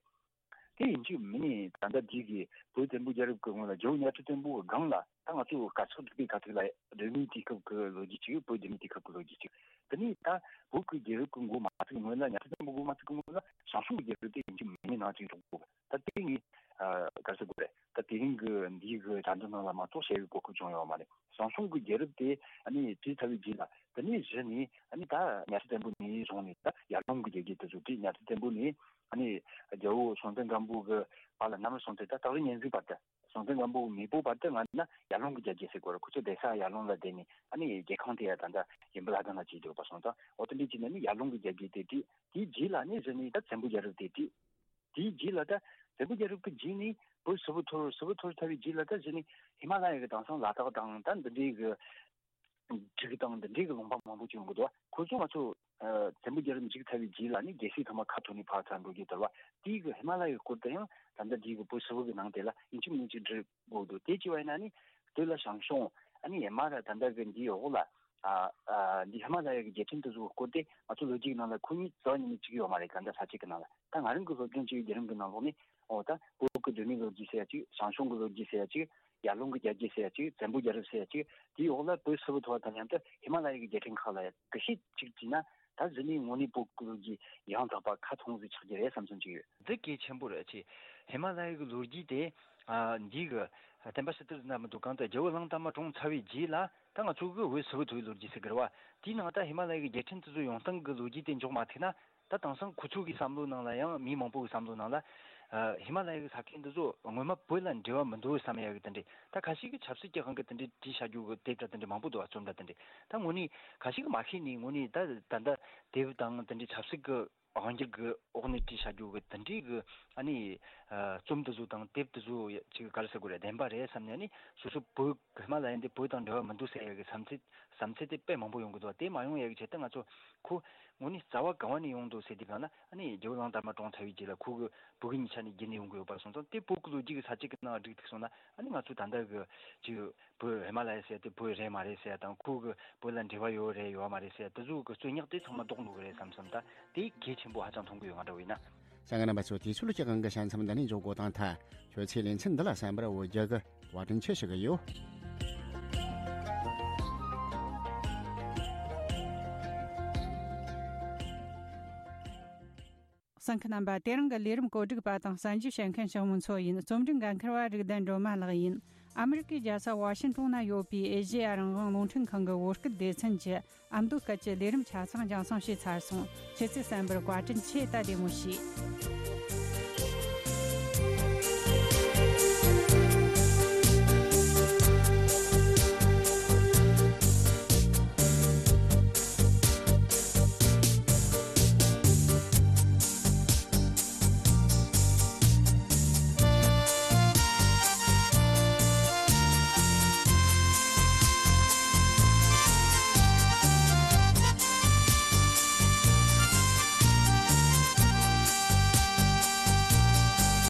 དེ་ཡིན་གཅིག་མིན་ནས་ད་ལྟ་འདི་གི་བོད་བཙན་པོ་རྒྱལ་རབས་ཀྱི་སྔོན་ལ་རྒྱལ་པོ་གཉའ་ཁྲི་བཙན་པོ་གི་སྒང་ལ་ད་ང་ཚོ་དཀར་ཆག་འབྲུག་པའི་ག་ཐུག་ལ་གདོད་མའི་དུས་སྐབས་ཀྱི་ལོ་རྒྱུས་ཅིག་བོད་གདོད་མའི་དུས་སྐབས་ཀྱི་ལོ་རྒྱུས་ཅིག་དེ་ནས་ད་བོད་ཀྱི་རྒྱལ་རབས་ཀྱི་འགོ་མ་ཚུགས་སྔོན་ལ་གཉའ་ཁྲི་བཙན་པོ་འགོ་མ་ཚུགས་སྔོན་ལ་ཞང་ཞུང་གི་རྒྱལ་རབས་དེ་ཡིན་གཅིག་མིན་ནས་ནང་ཅིག་འཇོག་དགོས། ད་དེ་ངས་ཨ་ག་རེ་ཟེར་དགོས་རེད། ད་དེ་རིང་གི་འདིའི་གི་དྲ་འབྲེལ་ནང་ལ་མ་གཏོགས་བཤད་པའི་གོ་སྐབས་བྱུང་ཡོད་མ་རེད། ཞང་ཞུང་གི་རྒྱལ་རབས་དེ་ཨ་ནི་བྲིས་ཚར་བའི་རྗེས་ལ་དེ་ནས་གཞི་ནས་ཨ་ནི་ད་གཉའ་ཁྲི་བཙན་པོ་ནས་བཟུང་ནས་ད་ཡར་ཀླུང་གི་རྒྱལ་རྒྱུད་དེ་ཚོ་བྲིས། གཉའ་ཁྲི་བཙན་པོ་ནས་ཨ་ནི་རྒྱལ་པོ་སྲོང་བཙན་སྒམ་པོ་གི་བར་ལ་གནམ་རི་སྲོང་བཙན་ད་སྟག་རི་གཉན་གཟིགས་བར་དུ། སྲོང་བཙན་སྒམ་པོ་གི་མེས་པོ་བར་དུ་ང་ན་ཡར་ཀླུང་གི་རྒྱལ་རྒྱུད་ཟེར་དགོས་རེད། ཁོ་ཚོ་བསྡད་ས་ཡར་ཀླུང་ལ་བསྡད་ནས་ཨ་ནི་རྒྱལ་ཁང་དེ་ཡ་ད་ལྟ་ཡུམ་བུ་བླ་བྲང་ལ་བྱས་འདུག་པ་སོང་ཙང་། འོ་དེ་འདྲ་བྱས་ནས་ནི་ཡར་ཀླུང་གི་རྒྱལ་རྒྱུད་དེ་བྲིས། དེའི་རྗེས་ལ་ནི་གཞི་ནས་ད་བཙན་པོ་རྒྱལ་རབས་དེ་བྲིས། དེའི་རྗེས་ལ་ད་བཙན་པོ་རྒྱལ་རབས་ཀྱི་རྗེས་ནས་བོད་ཧྲིལ་བོ་འཐོར། ཧྲིལ་བོ་འཐོར་ཚར་བའི་རྗེས་ལ་ད་གཞི་ནས་ཧི་མ་ལ་ཡ་གི་དེང་སང་ལ་དྭགས་དང་ད་འདི་འདྲའི་གི་འབྲུག་དང་འདི་འདྲའི་གི་ལུང་པ་མང་པོ་ཅིག་ཡོང་གི་འདུག་ཁོ་ཚོ་ང་ཚོ་ཨ་བཙན་པོ་རྒྱལ་རབས་མཇུག་ཚར་བའི་རྗེས་ལ་ནི་རྒྱལ་སྲིད་ཚང་མ་ཁ་ཐོར་ནས་ཕར་ཚུར་འགྲོ་རྒྱུ་དེ་རེད་བ། དེའི་གི་ཧི་མ་ལ་ཡའི་སྐོར་དེ་ཡང་ད་ལྟ་འདིའི་གི་བོད་ཧྲིལ་བོ་གི་ནང་དེ་ལ་ཡིན་གཅིག་མིན་གཅིག་འབྲི་དགོས་འདུག་དེ་བྱས་པ་ཡིན་ན་ནི་དེ་ལ་ཞང་ཞུང་ཨ་ནི་ཧི་མ་ལ་ཡ་ད་ལྟ་གི་འདིའི་འོག་ལ་ཨ་ཨ་འདི་ཧི་མ་ལ་ཡ་གི་རྒྱལ་ཕྲན་དེ་ཚོའི་སྐོར་དེ་ང་ཚོ་ལོ་རྒྱུས་ཀྱི་ནང་ལ་ཁོ་གཉིས་རྩ་བ་ཉིད་ནས་བྲིས་ཡོད་མ་རེད། ག་འདྲ་ས་བཅད་ཀྱི་ནང་ལ། ད་ང་རང་གི་སློབ་སྦྱོང་བྱས་པའི་བརྒྱུད་རིམ་གྱི་ནང་ལོགས་ནས་འོ་ད་བོད་ཀྱི་གདོད་མའི་ལོ་རྒྱུས་ཟེར་ཡ་གཅིག་ཞང་ཞུང་གི་ལོ་རྒྱུས་ཟེར་ཡ་གཅིག་ཡར་ཀླུང་གི་རྒྱལ་རྒྱུད་ཟེར་ཡ་གཅིག་བཙན་པོ་རྒྱལ་རབས་ཟེར་ཡ་གཅིག་དེའི་འོག་ལ་བོད་ཧྲིལ་བོ་འཐོར་བ་དང་མཉམ་དུ་ཧི་མ་ལ་ཡ་གི་རྒྱལ་ཕྲན་ཁག་ལ་ཡ་དག་ཞིབ་ཅིག་བྲིས་ན། ད་གཞི་ནས་དངོས་གནས་བོད་ཀྱི་ལོ་རྒྱུས་ཡང་དག་པ་ཁ་ཐོན་ཟིག་ཆགས་ཀྱི་རེད་བསམ་བསམ་ཅིག་ཡོད། འདི་གལ་ཆེན་པོ་རེད། ཅེས་ཧི་མ་ལ་ཡ་གི་ལོ་རྒྱུས་དེ་ཨ་འདི་གི་བསྟན་པ་ཕྱི་དར་ན་མི་འདུག་གང་ལྟར་རྒྱལ་པོ་གླང་དར་མ་གྲོངས་ཚར་བའི་རྗེས་ལ་ད་ང་ཚོ་གི་བོད་ཧྲིལ་བོ་འཐོར་བའི་ལོ་རྒྱུས་ཟེར་གི་རེད་བ། དེའི་ནང་ད་ཧི་མ་ལ་ཡ་གི་རྒྱལ་ཕྲན་དེ་ཚོ་ཡོང་སྟངས་གི་ལོ་རྒྱུས་དེ་འཇོག་མ་ཐུབ་ན། ད་དེང་སང་ཁོ་ཚོ་གི་བསམ་བློ་ནང་ལ་ཡང་མི་མང་པོ་གི་བསམ་བློ་ནང་ལ་ཨ་ཧི་མ་ལ་ཡ་གི་ས་ཁུལ་འདི་ཚོ་ངོ་མ་བོད་ལ་འབྲེལ་བ་མི་འདུག་བསམ་ཡ་གི་དེ་འདྲས། ད་ཁ་ཤས་ཀྱིས་ཆབ་སྲིད་ཀྱི་དབང་གིས་དེ་འདྲས་བྲིས་བཞག་རྒྱུ་གི་དེབ་འདྲ་དེ་འདྲས་མང་པོ་འདུག་བ། རྩོམ་འདྲ་དེ་འདྲས། ད་དངོས་གནས་ཁ་ཤས་ཀྱིས་མ་ཤེས་ནས་དངོས་གནས་ད་ད་ལྟ་དེབ་དང་དེ་འདྲས་ཆབ་སྲིད་ཀྱི་དབང་སྒྱུར་གྱི་འོག་ནས་བྲིས་བཞག་རྒྱུ་གི་དེ་འདྲས་གི་ཨ་ནི་ཨ་རྩོམ་དེ་ཚོ་དང་དེབ་དེ་ཚོ་ཅིག་ག་རེ་ཟེར་དགོས་རེད། བདེན་པ་རེད་བསམ་ནས། ཨ་ནི་སོ་སོ་བོད་ཧི་མ་ལ་ཡ་འདི་བོད་དང་འབྲེལ་བ་མི་འདུག་ཟེར་ཡ་གི་བསམ་ཚུལ་བསམ་ཚུལ་དེ་དཔེ་མང་པོ་ཡོང་གི་འདུག་དེ་མ་ཡོང་ཡ་གི་ཆེད་དུ་ང་ཚོ་ཁོ་དངོས་གནས་རྩ་བ་གང་བ་ནས་ཡོང་འདུག་ཟེར་དུས་སྒང་ལ། ཨ་ནི་རྒྱལ་པོ་གླང་དར་མ་གྲོངས་ཚར་བའི་རྗེས་ལ་ཁོ་གི་བུ་གུ་གཉིས་ཆ་ནས་རྒྱུད་ནས་ཡོང་གི་ཡོད་པ་སོང་ཙང་། དེ་བོད་ཀྱི་ལོ་རྒྱུས་ཀྱི་ས་བཅད་ཀྱི་ནང་བསྒྲིགས་ཐུབ་སོང་ན། ཨ་ནི་ང་ཚོ་ད་ལྟ་གི་ཅིག་བོད་ཧི་མ་ལ་ཡ་ཟེར་དེ་བོད་རེད་མ་རེད་ཟེར་དང་། ཁོ་གི་བོད་ལ་འབྲེལ་བ་ཡོད་རེད་ཡོད་མ་རེད་ཟེར་དེ་ཚོ་གི་རྩོད་རྙོག་དེ་ཚང་མ་ལྡོག་འགྲོ་གི་རེད་བསམ་བསམ། ད་དེ་གལ་ཆེན་པོ་ཧ་ཅང་མཐོང་གི་ཡོད། ང་འདྲ་བོ་ཡིན་ན། གསན་མཁན་རྣམ་པ་ཚོ། དེ་ཚོ་ལ་སྤྱི་སྒང་གི་ཞལ་མཚམས་འདི་ནས་འཇོག་དགོས་དང་། ད་ཁྱོད་ཚོས་ལེ་ཚན་འདི་ལ་གསན་པར་འོས་རྒྱུ་གི་བཀའ་དྲིན་ཆེ་ཞུ་གི་ཡོད། གསན་མཁན་རྣམ་པ། དེ་རིང་གི་ལས་རིམ་བཀོད་སྒྲིག་པ་དང་གསན་བརྗོད་བྱེད་མཁན་ཞང་མུན་མཚོ་ཡིན། རྩོམ་སྒྲིག་འགན་འཁུར་བ་རིག་ལྡན་སྒྲོལ་མ་ལགས་ཡིན། ཨ་མི་རི་ཀའི་རྒྱལ་ས་ཝ་ཤིང་ཏོན་ན་ཡོད་པའི་ཨེ་ཤེ་ཡ་རང་དབང་རླུང་འཕྲིན་ཁང་གི་བོད་སྐད་སྡེ་ཚན་གྱི་ཨ་མདོ་སྐད་ཀྱི་ལས་རིམ་ཆ་ཚང་རྒྱང་སྲིང་བྱས་ཚར་སོང་། ཁྱེད་ཚོས་གསན་པར་བཀའ་དྲིན་ཆེ། ད་བདེ་མོ་བྱོས།